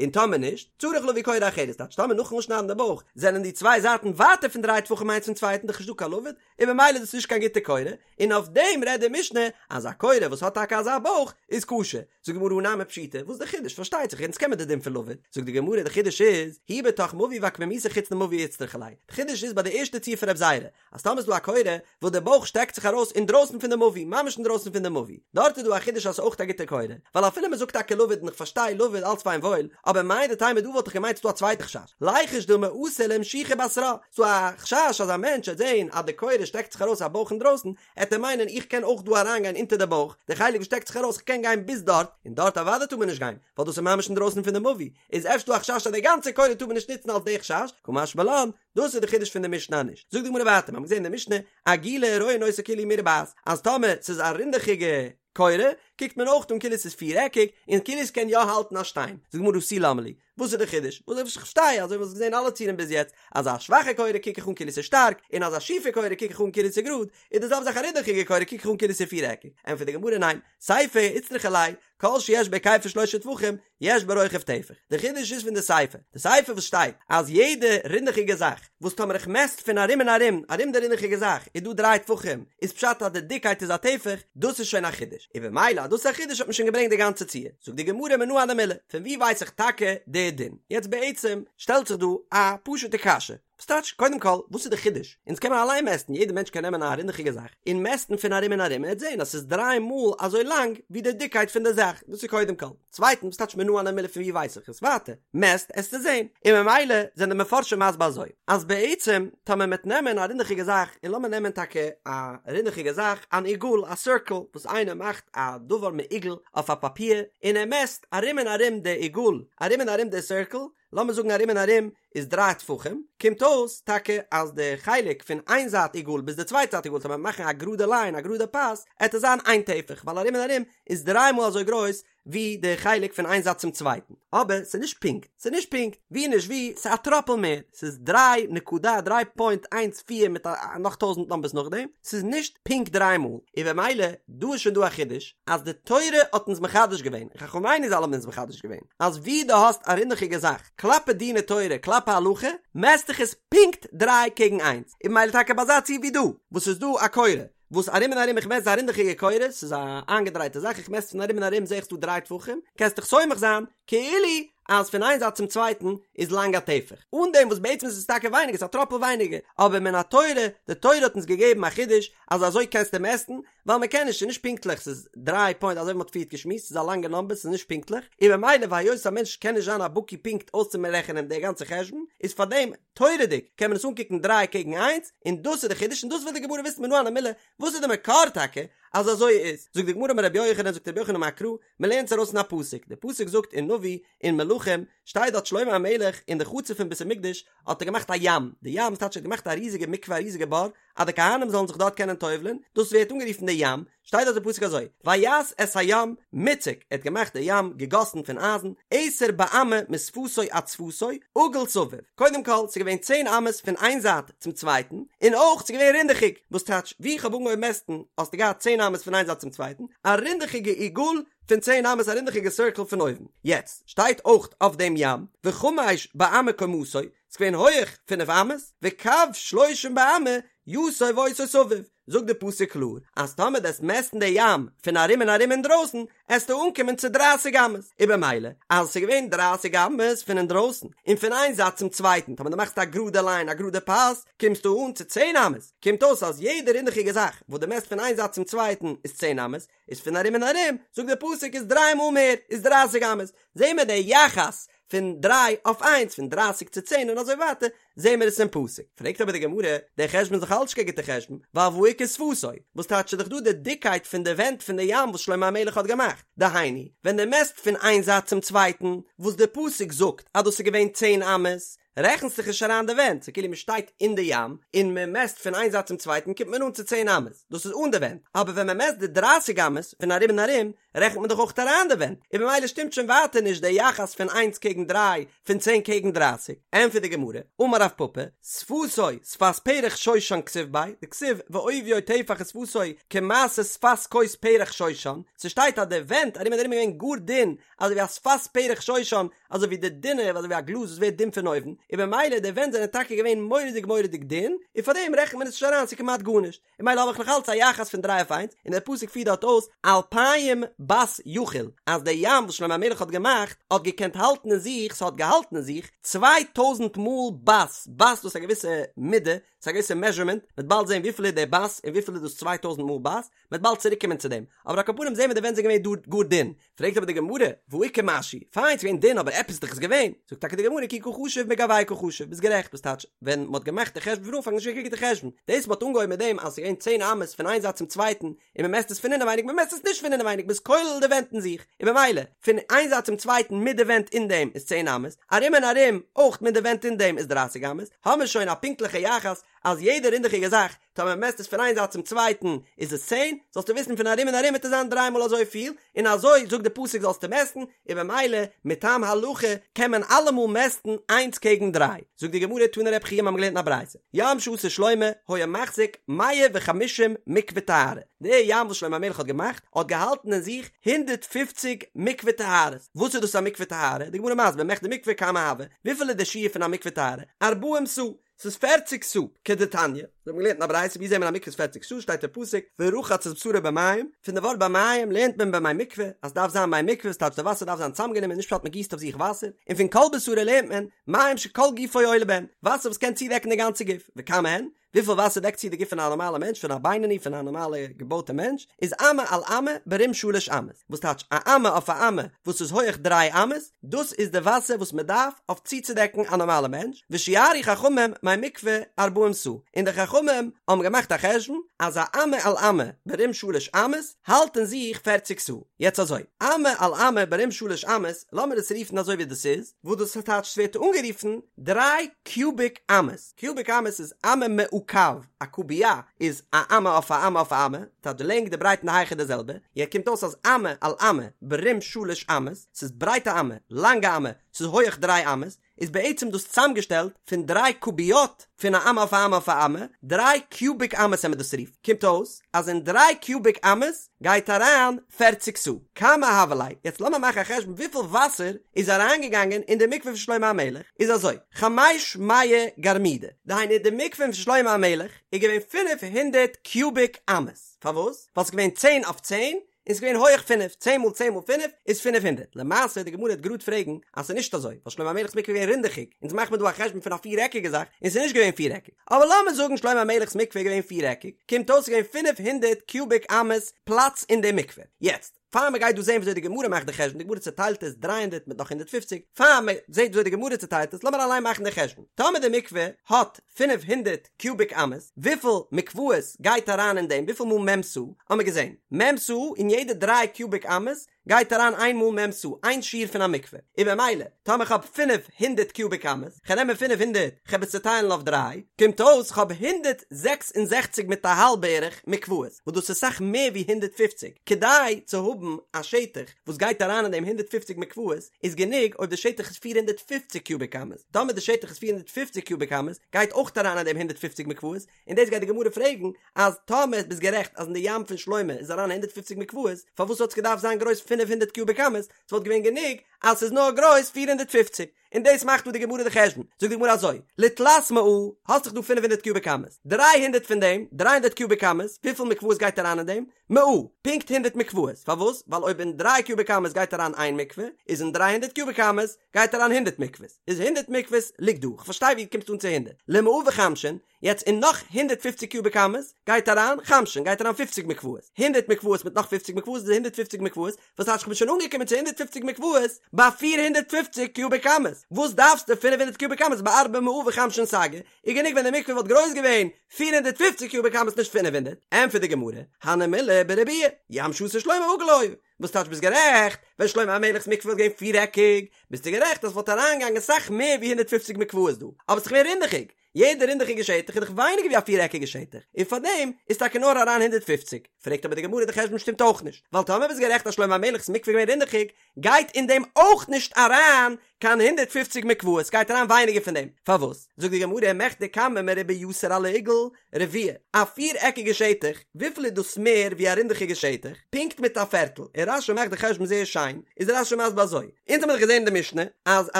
און טאמער נישט, צריך להביא קורה אחרת, טייטש טאמער נאכן אפשניידן די בויך זענען די צוויי זייטן ווייטער פון דריי טפחים איינס פון צווייטן דאך נישט דא קיין לבוד, און ממילא איז דאס נישט קיין גוטע קורה, און אויף דעם רעדט די משנה אז א קורה וואס האט טאקע אזא בויך איז כשר. זאגט די גמרא הא נמי פשיטא, וואס איז די חידוש? פארשטייט זיך אונז קען מען די דין פון לבוד. זאגט די גמרא די חידוש איז, היא בתוך מבוי ועקמומיתה חוץ למבוי איצטריכא ליה, די חידוש איז ביי די ערשטע ציור פון רב זירא, אז טאמער איז דא א קורה וואס די בויך שטעקט זיך ארויס אינדרויסן פון די מבוי, ממש אינדרויסן פון די מבוי, דארט איז דא א חידוש אז ס'איז אויך א גוטע קורה, ווייל אפילו מ'זאגט טאקע לבוד און איך פארשטיי לבוד אלץ פיין וואויל, אבער מהו דתימא דא וואלט איך געמיינט ס'דא א צווייטע חשש, ליחוש דילמא אתי לאמשוכי בתרה, ס'דא א חשש אז א מענטש וועט זען אז די קורה שטעקט זיך ארויס א בויך אינדרויסן, עט ער מיינען איך קען אויך דא אריינגיין אונטער די בויך, די חלק וואס שטעקט זיך ארויס איך קען גיין ביז דארט, און דארט אוודאי טאר מען נישט גיין, ווייל דאס איז ממש אינדרויסן פון די מבוי, איז אפשר דא א חשש אז די גאנצע קורה טאר מען נישט נוצן אלס די חשש, קא משמע לן, דאס איז די חידוש פון די משנה נישט. זאגט די גמרא ווייטער, מיר האבן געזען אין די משנה, עגולה רואין אותה כאילו היא מרובעת, אז טאמער ס'איז א רינדעכיגע קורה, קוקט מען אויך אן כאילו ס'איז פירעקיג, און כאילו ס'קען יא האלטן א שטיין. זאגט די גמרא הא תו למה לי, וואס איז די חידוש? וואס איך פארשטיי אזוי ווי מ'האט געזען אלע ציורים ביז יעצט, אז א שוואכע קורה קוק איך אן כאילו ס'איז שטארק, און אז א שיפע קורה קוק איך אן כאילו ס'איז גראד, איז די זעלבע זאך א רינדעכיגע קורה קוק איך אן כאילו ס'איז פירעקיג. ענטפערט די גמרא ניין, סיפא איצטריכא ליה, כל שיש בהיקפו שלשה טפחים, יש ברוחב טפח. די חידוש איז פון די סיפא. די סיפא וואס שטייט אז יעדע רינדעכיגע זאך וואס טאמער איך מעסט פון ארום און ארום ארום די רינדעכיגע זאך איז דא דריי טפחים איז פשט אז די דיקייט איז א טפח, דאס איז שוין א חידוש. און במילא אז דאס איז א חידוש האט מען שוין געברענגט די גאנצע ציור. זאגט די גמרא מנא הני מילי, פון וואו ווייס איך טאקע די דין? יעצט בעצם שטעלט זיך דא א פשוטע קשיא. וואס טייטש? קודם כל, וואס איז די חידוש? אונז קען מען אליין מעסטן, יעדער מענטש קען נעמען א רינדעכיגע זאך און מעסטן פון ארום און ארום און ער וועט זען אז ס'איז דריי מאל אזוי לאנג ווי די דיקקייט פון די זאך, דאס איז קודם כל. צווייטנס, וואס טייטש מנא הני מילי פון וואו ווייס איך עס? ווייטער, מעסט עסטו זען. און ממילא זענען די מפרשים מסביר אזוי, אז בעצם טאמער מ'עט נעמען א רינדעכיגע זאך, און לאמיר נעמען טאקע א רינדעכיגע זאך, אן עיגול, א סירקל, וואס איינער מאכט א דבר מעוגל אויף א פאפיר, און ער מעסט ארום און ארום די עיגול, ארום און ארום די סירקל, לאמיר זאגן ארום און ארום איז דריי טפחים, קומט אויס טאקע אז די חלק פון איין זייט עיגול ביז די צווייטע זייט עיגול, טאמער מאכן א גראדע ליין, א גראדע פאס, עט עס זיין איין טפח, ווייל ארום און ארום איז דריי מאל אזוי גרויס ווי די חלק פון איין זייט צום צווייטן. אבער ס'איז נישט פונקט, ס'איז נישט פונקט, ווי נישט ווי, ס'איז א טראפל מער, ס'איז דריי נקודה דריי פוינט איינס פיר מיט א נאך טויזנט נומבערס נאכדעם, ס'איז נישט פונקט דריי מאל, און במילא דא איז שוין דא א חידוש אז די תורה האט אונז מחדש געווען, און חכמינו ז"ל האבן אונז מחדש געווען, אז ווי דו האסט א רינדעכיגע זאך, כלפי דיני תורה, כלפי הלכה, מעסט איך עס פונקט דריי קעגן איינס, און במילא טאקע ביי אזא ציור ווי דא, וואס ס'איז דא א קורה, וואס ארום און ארום איך מעסט א רינדעכיגע קורה, ס'איז א איינגעדרייטע זאך, איך מעסט פון ארום און ארום זעה איך ס'דא דריי טפחים, קענסט דיך סומך זיין, כאילו אז פון איין זייט צום צווייטן איז לאנג א טפח, אן דעם וואס בעצם איז עס טאקע ווייניגער, ס'איז א טראפל ווייניגער, אבער מן התורה, די תורה האט אונז געגעבן א חידוש אז אזוי קענסטו מעסטן, ווייל מען קען נישט, ס'איז נישט פונקטליך, ס'איז דריי פוינט אזוי ווי מ'האט פריערט געשמועסט, ס'איז א לאנגע נאמבער, ס'איז נישט פונקטליך, און במילא והיות א מענטש קען נישט זיין א בקי פונקט אויסצומרעכענען די גאנצע חשבון, איז פארדעם, תורה'דיג, קען מען עס אנקוקן דריי קעגן איינס, און דאס איז די חידוש, און דאס וויל די גמרא וויסן מנא הני מילי, וואס איז די מקור טאקע אז אזוי איז? זאגט די גמרא אמר רבי יוחנן, זאגט רבי יוחנן אמר קרא, מען לערנט עס ארויס אין א פסוק, די פסוק זאגט אין נביא, אין מלכים, שטייט דארט שלמה המלך אין די חצר פון בית המקדש האט ער געמאכט א ים, די ים ס'טייטש ער האט געמאכט א ריזיגע מקווה א ריזיגע בור, אז די כהנים זאלן זיך דארט קענען טובל'ען, דאס ווערט אנגערופן די ים, שטייט דארט די פסוק אזוי, ויעש את הים מוצק, ער האט געמאכט די ים געגאסן פון אייזן, עשר באמה משפתו עד שפתו, עגול סביב, קודם כל ס'איז געווען צען אמות פון איין זייט צום צווייטן, און אויך ס'איז געווען רינדעכיג, וואס טייטש, ווי איך האב אנגעהויבן מעסטן האסטו געהאט צען אמות פון איין זייט צום צווייטן, א רינדעכיגע עיגול פון צען אמות א רינדעכיגע סירקל פון אויבן, יעצט שטייט אויך אויף דעם ים, וחמש באמה קומתו, ס'איז געווען הויעך פינף אמות, וקו שלושים באמה יסוב אותו סביב, זאגט די פסוק קלאר אז טאמער דו עסט מעסטן די ים פון ארום און ארום אינדרויסן עסטו אנקומען צו דרייסיג אמות, און במילא אז עס איז געווען דרייסיג אמות פון אינדרויסן און פון איין זייט צום צווייטן טאמער דו מאכסט א גראדע ליין א גראדע פאס קומסטו אן צו צען אמות, קומט אויס אז יעדע רינדעכיגע זאך וואס דו מעסט פון איין זייט צום צווייטן איז צען אמות, איז פון ארום און ארום, זאגט דער פסוק איז דריי מאל מער, איז דרייסיג אמות, זעהן מיר די יחס פון דריי אויף איינס, פון דרייסיג צו צען און אזוי ווייטער, זעהן מיר עס אין פסוק. פרעגט אבער די גמרא, דער חשבון איז דאך אלץ נישט קיין גוטער חשבון, ווייל והא איכא שפתו, וואס טייטש איז דאך דא די דיקקייט פון די ווענט פון די ים וואס שלמה המלך האט געמאכט, דהיינו, ווען דו מעסט פון איין זייט צום צווייטן, וואס די פסוק זאגט אז דאס איז געווען צען אמות, רעכנסט זיך נישט אריין די ווענט, ס'איז כאילו מען שטייט אין די ים און מען מעסט פון איין זייט צום צווייטן קומט מען אן צו צען אמות, דאס איז אן די ווענט, אבער ווען מען מעסט די דרייסיג אמות פון ארום און ארום רעכנט מען דאך אויך אריין די ווענט, און במילא שטימט שוין ווייטער נישט די יחס פון איינס קעגן דריי, פון צען קעגן דרייסיג, ענטפערט די גמרא, אמר רב פפא, שפתו שפת פרח שושן כתיב ביה, דכתיב ועוביו טפח ושפתו כמעשה שפת כוס פרח שושן, ס'שטייט אז די ווענט ארום און ארום איז געווען גאר דין, אזוי ווי א שפת פרח שושן, אזוי ווי די דינע, אזוי ווי א גלאז וואס ווערט דין פון אויבן, און במילא די ווענט זענען טאקע געווען מורא'דיג מורא'דיג דין, און פאר דעם רעכנט מען עס נישט אריין, ס'איז כמעט גארנישט, און במילא האב איך נאך אלץ א יחס פון דריי אויף איינס, און דער פסוק פירט דארט אויס אלפיים בת יכיל, אז דער ים וואס שלמה המלך האט געמאכט, האט געקענט האלטן אין זיך, ס'האט געהאלטן אין זיך, 2000 מאל בת, בת דאס איז א געוויסע מידה, ס'איז א געוויסע מעזשערמענט, מ'וועט באלד זען וויפיל איז דער בת און וויפיל איז דאס 2000 מאל בת, מ'וועט באלד צוריק קומען צו דעם, אבער על כל פנים זעהן מיר די ווענט זענען געווען גאר גאר דין, פרעגט אבער די גמרא, והא איכא משהו, פיין ס'איז געווען דין אבער עפעס איז דאך עס געווען, זאגט טאקע די גמרא כי קא חשיב מגואי קא חשיב, ביסט גערעכט, וואס טייטש, ווען מ'האט געמאכט די חשבון פון אנפאנג איז נישט געווען קיין גוטע חשבון, דאס מ'האט אנגעהויבן מיט דעם אז ס'איז געווען צען אמות פון איין זייט צום צווייטן, און מ'מעסט עס פון אינעווייניג, מ'מעסט עס נישט פון אינעווייניג, מ'איז כולל די ווענט אין זיך, און במילא, פון איין זייט צום צווייטן מיט די ווענט אין דעם איז צען אמות, ארום און ארום אויך מיט די ווענט אין דעם איז דרייסיג אמות, האמיר שוין א פונקטליכע יחס. אז יעדע רינדעכיגע זאך טאמער מען מעסט עס פון איין זייט צום צווייטן איז עס צען, זאלסטו וויסן פון ארום און ארום וועט עס זיין דריי מאל אזויפיל, און אזוי זאגט די פסוק זאלסטו מעסטן, און במילא מטעם הלכה קען מען אלעמאל מעסטן איינס קעגן דריי. זאגט די גמרא תני רבי חייא מ'האמיר געלערנט אין א ברייתא, ים שעשה שלמה היה מחזיק מאה וחמישים מקווה טהרה, די ים וואס שלמה המלך האט געמאכט האט געהאלטן אין זיך הונדערט פופציג מקווה טהרות, וואס איז דאס א מקווה טהרה? די גמרא מסביר מכדי מקווה כמה הוי, וויפיל איז די שיעור פון א מקווה טהרה? ארבעים סאה, ס'איז פערציג סאה, כדתניא, מיר האבן געלערנט אין א ברייתא ווי זעהט מען א מקווה איז פערציג סאה שטייט אין פסוק ורחץ את בשרו במים, פון די ווארט במים לערנט מען במי מקווה אז ס'דארף זיין מי מקווה ס'טייטש די וואסער דארף זיין צוזאמגענומען נישט פשט מ'גיסט אויף זיך וואסער, און פון כל בשרו לערנט מען מים שכל גופו עולה בהן, וואסער וואס קען צודעקן די גאנצע גוף, וכמה הן? וויפיל וואסער דעקט צו די גוף פון א נארמאלע מענטש פון א בינוני פון א נארמאלע געבויטע מענטש איז אמה על אמה ברום שלש אמות וואס טייטש א אמה אויף א אמה וואס איז הויעך דריי אמות דאס איז די וואסער וואס מען דארף אויף צוצודעקן א נארמאלע מענטש ושיערו חכמים מי מקווה ארבעים סאה און די חכמים האבן געמאכט א חשבון אז א אמה על אמה ברום שלש אמות האלט אין זיך פערציג סאה יעצט אזוי אמה על אמה ברום שלש אמות לאמיר עס רופן אזוי ווי דאס איז וואס דאס טייטש ס'ווערט אנגערופן דריי קיוביק אמות. קיוביק אמות איז אמה מעוקב, א קוביא איז א אמה אויף א אמה אויף א אמה, טייטש די לענג די ברייט און די הייך איז די זעלבע, יעצט קומט אויס אז אמה על אמה ברום שלש אמות, ס'איז ברייט א אמה, לאנג א אמה, ס'איז הויעך דריי אמות, איז בעצם דאס צוזאמגעשטעלט פון דריי קוביות פון א אמה אויף א אמה אויף א אמה, דריי קיוביק אמות וועט מען דאס רופן, קומט אויס אז אין דריי קיוביק אמות גייט אריין פערציג סאה. כמה הוה ליה, יעצט לאמיר מאכן א חשבון וויפיל וואסער איז אריינגעגאנגען אין די מקווה פון שלמה המלך, איז אזוי, חמש מאה גרמידי, דהיינו די מקווה פון שלמה המלך איז געווען פינף הונדערט קיוביק אמות, פארוואס? ווייל ס'איז געווען צען אויף צען, און ס'איז געווען הויעך פינף, צען מאל צען מאל פינף איז פינף הונדערט, למעשה די גמרא וועט גראד פרעגן אז ס'איז נישט אזוי, ווייל שלמה המלך'ס מקווה איז געווען רינדעכיג, אונז מאכט מען דא א חשבון פון א פיר עקיגע זאך, און ס'איז נישט געווען פיר עקיג. אבער לאמיר זאגן שלמה המלך'ס מקווה איז געווען פיר-עקיג, קומט אויס ס'איז געווען פינף הונדערט קיוביק אמות פלאץ אין די מקווה. יעצט, פאר מ'גייט דא זען וויאזוי די גמרא מאכט די חשבון, די גמרא צעטיילט עס דריי הונדערט מיט נאך 150, פאר מ'זעט וויאזוי די גמרא צעטיילט עס, לאמיר אליין מאכן די חשבון. טאמער די מקווה האט 500 קיוביק אמות, וויפיל מקוואות גייט אריין אין דעם, וויפיל מאל מ' סאה, האמיר געזען, מ' סאה אין יעדע דריי קיוביק אמות גייט אריין איין מאל מ' סאה, איין שיעור פון א מקווה, און במילא, טאמער כ'האב 500 קיוביק אמות, כ'על נעמען 500, כ'עב עס צוטיילן אויף דריי, קומט אויס כ'האב 166 מיט א האלב בערך מקוואות, וואס דאס איז סאך מער ווי 150, כדי צו האבן א שטח וואס גייט אריין אין דעם 150 מקוואות, איז גענוג אויב די שטח איז 450 קיוביק אמות, טאמער די שטח איז 450 קיוביק אמות, גייט אויך אריין אין דעם 150 מקוואות, און דאס גייט די גמרא פרעגן, אז טאמער ביסט גערעכט אז אין די ים פון שלמה איז אריין הונדערט פופציג מקוואות, פארוואס האט עס געדארפט זיין גרויס פינף הונדערט קיוביק אמות, ס'וואלט געווען גענוג אז ס'איז נאר גרויס פיר הונדערט פופציג, און דאס מאכט דא די גמרא די חשבון, זאגט די גמרא אזוי, לתלת מאה, האסט דאך דא פינף הונדערט קיוביק אמות, דריי הונדערט פון דעם, דריי הונדערט קיוביק אמות, וויפיל מקוואות גייט אריין אין דעם? מאה, פונקט הונדערט מקוואות, פארוואס? ווייל אויב אין דריי קיוביק אמות גייט אריין איין מקווה, איז אין דריי הונדערט קיוביק אמות גייט אריין הונדערט מקוואות, איז הונדערט מקוואות ליגט דא, כ'פארשטיי ווי דו קומסט אן צו הונדערט, למאה וחמשין, יעצט אין נאך הונדערט פופציג קיוביק אמות גייט אריין חמשין גייט אריין פופציג מקוואות, הונדערט מקוואות מיט נאך פופציג מקוואות איז הונדערט פופציג מקוואות, וואס טייטש כ'בין שוין אנגעקומען צו הונדערט פופציג מקוואות ביי פיר הונדערט פופציג קיוביק אמות, וואס דארפסטו פינף הונדערט קיוביק אמות בארבע מאה וחמשין סגי, איז גענוג ווען די מקווה וואלט גרויס געווען פיר הונדערט פופציג קיוביק אמות נישט פינף הונדערט, ענטפערט די גמרא, הני מילי בריבוע, ים שעשה שלמה עגול היה, וואס טייטש ביסט גערעכט, ווען שלמה המלך'ס מקווה וואלט געווען פיר-עקיג, ביסטו גערעכט אז ס'וואלט אריינגעגאנגען סאך מער ווי הונדערט פופציג מקוואות דא, אבער ס'איז געווען רינדעכיג, יעדע רינדעכיגע שטח איז דאך ווייניגער ווי א פיר-עקיגע שטח, און פארדעם איז טאקע נאר אריין 150. פרעגט אבער די גמרא די חשבון שטימט אויך נישט, ווייל טאמער ביסט גערעכט אז שלמה המלך'ס מקווה איז געווען רינדעכיג, גייט אין דעם אויך נישט אריין קיין 150 מקוואות, ס'גייט אריין ווייניגער פון דעם, פארוואס? זאגט די גמרא מכדי כמה מרובע יתר על העיגול רביע, א פיר-עקיגע שטח, וויפיל איז דאס מער ווי א רינדעכיגע שטח? פונקט מיט א פערטל, און רש"י מאכט די חשבון זייער שיין, איז רש"י מסביר אזוי, אונז האמיר דאך געזען אין די משנה אז א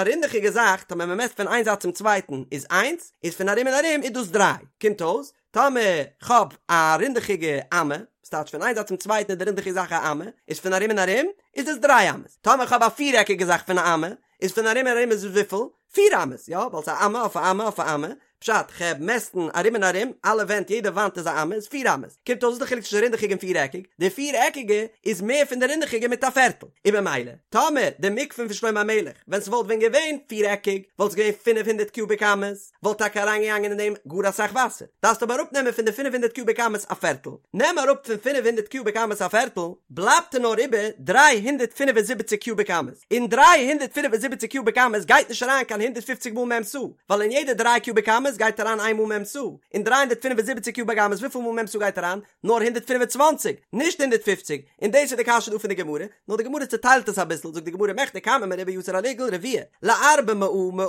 רינדעכיגע זאך טאמער מען מעסט פון איין זייט צום צווייטן איז איינס, איז פון ארום און ארום איז דאס דריי, קומט אויס טאמער כ'האב א רינדעכיגע אמה, ס'טייטש פון איין זייט צום צווייטן איז די רינדעכיגע זאך א אמה, איז פון ארום און ארום איז דאס דריי אמות, טאמער כ'האב א פירעקיגע זאך פון א אמה, איז פון ארום און ארום איז עס וויפיל? פיר אמות, יא, ווייל ס'איז א אמה אויף א אמה אויף א אמה, פשט, כ'העב מעסטן ארום און ארום, אלע ווענט, יעדע וואנט איז א אמה, איז פיר אמות. קומט אויס וואס איז די חילוק צווישן רינדעכיג און פירעקיג? די פירעקיגע איז מער פון די רינדעכיגע מיט א פערטל. און במילא, טאמער די מקווה פון שלמה המלך, ווען ס'וואלט ווען געווען פירעקיג, וואלט עס געווען פינף הונדערט קיוביק אמות, וואלט טאקע אריינגעגאנגען אין דעם גאר אסאך וואסער. דארפסט אבער אראפנעמען פון די פינף הונדערט קיוביק אמות א פערטל. נעם אראפ פון פינף הונדערט קיוביק אמות א פערטל, בלייבט נאר איבער 375 קיוביק אמות. אין 375 קיוביק אמות גייט נישט אריין קיין 150 מאל מ' סאה, ווייל אין יעדע דריי קיוביק אמות אמות גייט אריין איין מאל מ' סאה, אין 375 קיוביק אמות וויפיל מאל מ' סאה גייט אריין? נאר 125, נישט 150, און דאס איז די קשיא דא פון די גמרא, נאר די גמרא צעטיילט עס אביסל, זאגט די גמרא מכדי כמה מרובע יתר על עיגול רביע, לארבע מאה מאה,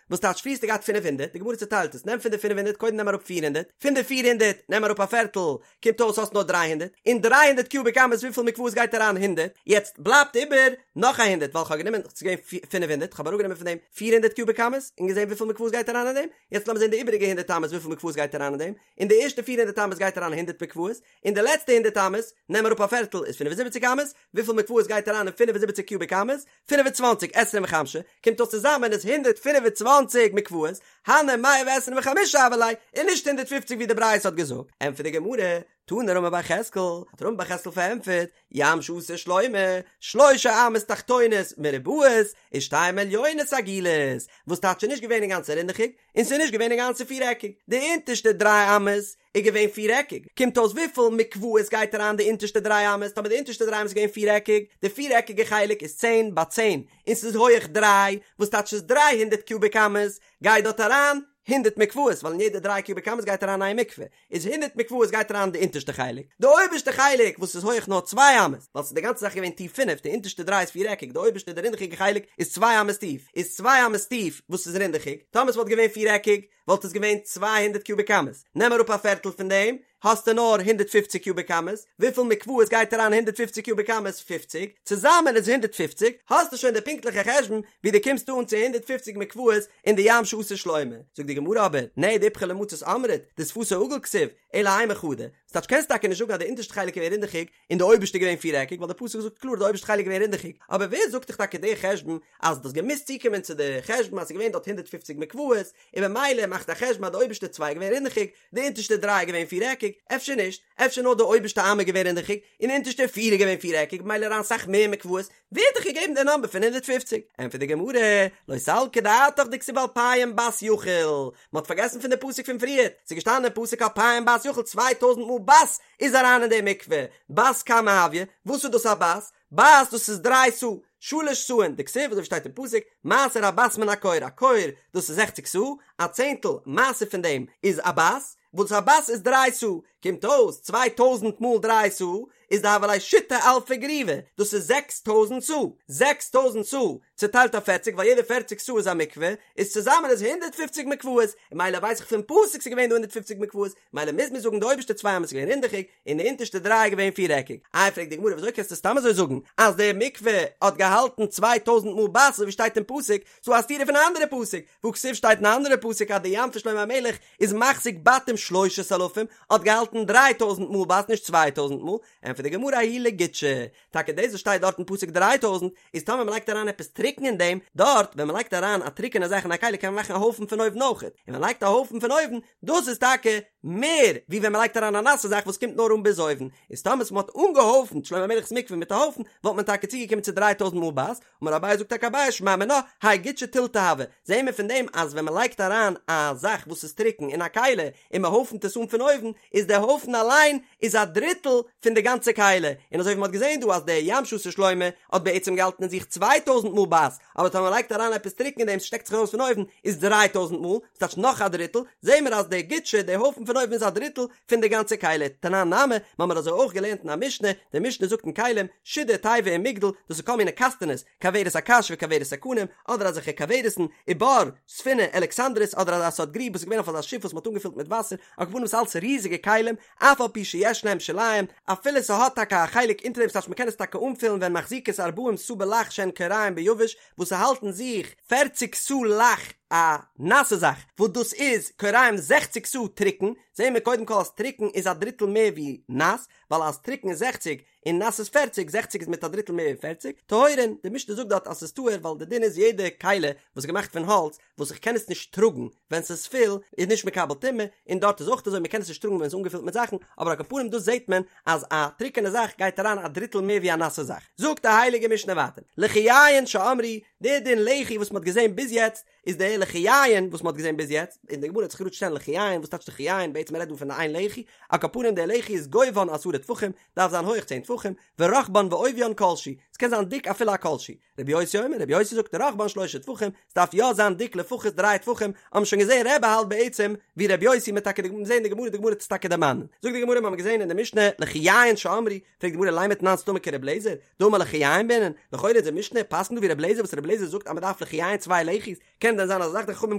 וואס טייטש פריער האסטו געהאט פינף הונדערט, די גמרא צעטיילט עס, נעם פון די פינף הונדערט קודם נעם אראפ פיר הונדערט, פון די פיר הונדערט נעם אראפ א פערטל, קומט אויס האסט נאר דריי הונדערט, אין דריי הונדערט קיוביק אמות וויפיל מקוואות גייט אריין הונדערט, יעצט בלייבט איבער נאך א הונדערט ווייל כ'האב גענומען ס'איז געווען פינף הונדערט כ'האב אראפגענומען פון דעם פיר הונדערט קיוביק אמות און געזען וויפיל מקוואות גייט אריין אין דעם, יעצט לאמיר זען די איבעריגע הונדערט אמות וויפיל מקוואות גייט אריין אין דעם, אין די ערשטע פיר הונדערט אמות גייט אריין הונדערט מקוואות, אין די לעצטע הונדערט אמות נעם אראפ א פערטל איז פינף און זיבעציק אמות, וויפיל מקוואות גייט אריין אין פינף און זיבעציק קיוביק אמות? פינף און צוואנציג עשרים וחמשה, קומט אויס צוזאמען איז 125 מקוואות, הני מאה ועשרים וחמשה הוו ליה, און נישט 150 ווי די ברייתא האט געזאגט, ענטפערט די גמרא, תני רמי בר יחזקאל, האט רמי בר יחזקאל פארענטפערט, ים שעשה שלמה, שלשה אמות תחתונות מרובעות, ושתיים עליונות עגולות, וואס טייטש ס'איז נישט געווען אינגאנצן רינדעכיג, און ס'איז נישט געווען אינגאנצן פירעקיג, די אונטערשטע דריי אמות איז געווען פירעקיג, קומט אויס וויפיל מקוואות גייט אריין די אונטערשטע דריי אמות, טאמער די אונטערשטע דריי אמות איז געווען פירעקיג, די פירעקיגע חלק איז צען ביי צען, און ס'איז הויעך דריי, וואס טייטש ס'איז דריי הונדערט קיוביק אמות, גייט דארט אריין הונדערט מקוואות, ווייל אין יעדע דריי קיוביק אמות גייט אריין איין מקווה, איז הונדערט מקוואות גייט אריין די אונטערשטע חלק, די אויבערשטע חלק וואס איז הויעך נאר צוויי אמות, ווייל ס'איז די גאנצע זאך געווען טיף פינף, די אונטערשטע דריי איז פירעקיג, די אויבערשטע די רינדעכיגע חלק איז צוויי אמות טיף, איז צוויי אמות טיף וואס איז רינדעכיג, טאמער ס'וואלט געווען פירעקיג, וואלט עס געווען 200 קיוביק אמות, נעם אראפ א פערטל פון דעם, האסטו נאר 150 קיוביק אמות, וויפיל מקוואות גייט אריין 150 קיוביק אמות? 50, צוזאמען איז 150, האסטו שוין די פונקטליכע חשבון ווי דו קומסט אן צו 150 מקוואות אין די ים שעשה שלמה. זאגט די גמרא אבער, נהי דאיפכא למצות אמרת, דשפתו עגול כתיב, אלא אימא חדא, ס'טייטש קענסט טאקע נישט זאגן אז די אונטערשטע חלק איז געווען רינדעכיג און די אויבערשטע איז געווען פירעקיג ווייל די פסוק זאגט קלאר די אויבערשטע חלק איז געווען רינדעכיג, אבער ווער זאגט דיך טאקע די חשבון אז דו האסט געמוזט צוקומען צו די חשבון אז ס'איז געווען דארט 150 מקוואות און במילא מאכט א חשבון אז די אויבערשטע צוויי איז געווען רינדעכיג די אונטערשטע דריי איז געווען פירעקיג, אפשר נישט, אפשר נאר די אויבערשטע אמה איז געווען רינדעכיג און די אונטערשטע פיר איז געווען פירעקיג במילא אריין סאך מער מקוואות, ווער האט דיך געגעבן די נאמבער פון 150? ענטפערט די גמרא, לא סלקא דעתך דכתיב אלפים בת יכיל, מען האט פארגעסן פון די פסוק פון פריערט, ס'איז געשטאנען אין פסוק אלפים בת יכיל צוויי טויזנט מאל בת איז אריין אין די מקווה, בת כמה הויא, וואס איז דאס א בת? בת דאס איז דריי סאה, שלש סאין, דכתיב אזוי ווי שטייט אין פסוק, מעשר הבת מן הכור, א כור דאס איז זעכציק סאה, א צענטל מעשר פון דעם איז א בת, וואס א בת איז דריי סאה, קומט אויס 2000 מאל דריי סאה איז דהוה ליה שיתא אלפי גריוי, דאס איז 6000 סאה, 6000 סאה צוטיילט אויף פערציג ווייל יעדע פערציג סאה איז א מקווה, איז צוזאמען איז 150 מקוואות, און מילא ווייס איך פון פסוק ס'איז געווען דא 150 מקוואות, מילא מוז מען זאגן די אויבערשטע צוויי אמות איז געווען רינדעכיג, און די אונטערשטע דריי איז געווען פירעקיג. איי פרעגט די גמרא וויאזוי קענסטו סתם אזוי זאגן אז די מקווה האט געהאלטן 2000 מאל בת אזוי ווי שטייט אין פסוק, ס'דא א סתירה פון א אנדערע פסוק, והכתיב שטייט אין א אנדערע פסוק אז די ים פון שלמה המלך איז מחזיק בתים שלושת אלפים, האט געהאלטן 3000 מאל בת נישט 2000 מאל, ענטפערט די גמרא ההוא לגודשא, טאקע דאס וואס שטייט דארט אין פסוק 3000 איז טאמער מ'לייגט אריין עפעס טרוקן אין דעם, דארט ווען מ'לייגט אריין א טרוקענע זאך אין א כלי קען מען מאכן א הויפן פון אויבן אויכעט, און ווען מ'לייגט א הויפן פון אויבן, דאס איז טאקע מער ווי ווען מ'לייגט אריין א נאסע זאך וואס קומט נאר אן ביז אויבן, איז טאמער מ'האט אנגעהויפנט שלמה המלך'ס מקווה מיט א הויפן וואלט מען טאקע צוגעקומען צו 3000 מאל בת, אמר אביי זאגט טאקע אביי שמע מינה האי גודשא תילתא הוי, זעהן מיר פון דעם אז ווען מען לייגט אריין א זאך וואס איז טרוקן אין א כלי און מען הויפנט עס אן פון אויבן איז דער הויפן אליין איז א דריטל פון די גאנצע כלי, און אזוי ווי מען האט געזעהן דא אז דער ים שעשה שלמה האט בעצם געהאלטן אין זיך צוויי טויזנט מאל בת, אבער טאמער מען לייגט אריין עפעס טרוקן אין דעם ס'שטעקט זיך ארויס פון אויבן איז דריי טויזנט מאל, ס'טייטש נאך א דריטל, זעהן מיר אז דער גודשא דער הויפן פון אויבן איז א דריטל פון די גאנצע כלי, תנן נמי, מ'האמיר אזוי אויך געלערנט אין א משנה, די משנה זאגט אין כלים, שידה תיבה ומגדל, דאס איז כל מיני קאסטענעס, כוורת הקש וכוורת הקנים, אדער אזעלכע כוורת'ן, ובור, ספינה, אלכסנדרית, אדער אזא סארט גריב וואס איז געווען אויף אזא שיף וואס מ'האט אנגעפילט מיט וואסער, על כל פנים ס'איז אלץ ריזיגע כלים, אף על פי שיש להם שוליים, אפילו ס'האט טאקע א חלק אונטער דעם ס'טייטש מ'קען עס טאקע אנפילן והן מחזיקות ארבעים סאה בלח שהן כוריים ביבש, וואס ס'האלט אין זיך פערציג סאה לח א נאסע זאך, וואס דאס איז כוריים זעכציג סאה טרוקן, זעהן מיר קודם כל אז טרוקן איז א דריטל מער ווי נאס, ווייל אז טרוקן איז זעכציג און נאס איז פערציג, זעכציג איז מיט א דריטל מער ווי פערציג, טהורין, די משנה זאגט דארט אז ס'איז טהור ווייל די דין איז יעדע כלי וואס איז געמאכט פון האלץ וואס איך קען עס נישט טראגן ווען ס'איז פול איז נישט מקבל טומאה, און דארט איז אויך אזוי מ'קען עס נישט טראגן ווען ס'איז אנגעפילט מיט זאכן, אבער על כל פנים דא זעהט מען אז א טרוקענע זאך גייט אריין א דריטל מער ווי א נאסע זאך. זאגט די הייליגע משנה ווייטער, לחיין שאמרו. די דין לחי וואס מ'האט געזען ביז יעצט איז די לחיין וואס מ'האט געזען ביז יעצט, און די גמרא וועט זיך גראד שטעלן לחיין, וואס טייטש לחיין, בעצם מ'רעדט דא פון איין לחי, על כל פנים די לחי איז גובהן עשרה טפחים, דארף זיין הויך צען טפחים, ורחבן ועוביין כל שהוא, ס'קען זיין דיק אפילו א כל שהוא. רבי יוסי אומר, רבי יוסי זאגט רחבן שלושה טפחים, ס'דארף יא זיין דיק לפחות דריי טפחים, האבן שוין געזען רבי האלט בעצם ווי רבי יוסי מ'וועט טאקע זען די גמרא, די גמרא וועט עס טאקע דערמאנען. זאגט די גמרא מ'האבן געזען אין די משנה לחיין שאמרו, פרעגט די גמרא לימא תנן סתמא כרבי אליעזר, דאמר לחיין בעינן, לכאורה איז די משנה פסק'נט דא ווי רבי אליעזר וואס רבי אליעזר זאגט אז מ'דארף לחיין צוויי לחי'ס, קען דען זיין אזא זאך די חכמים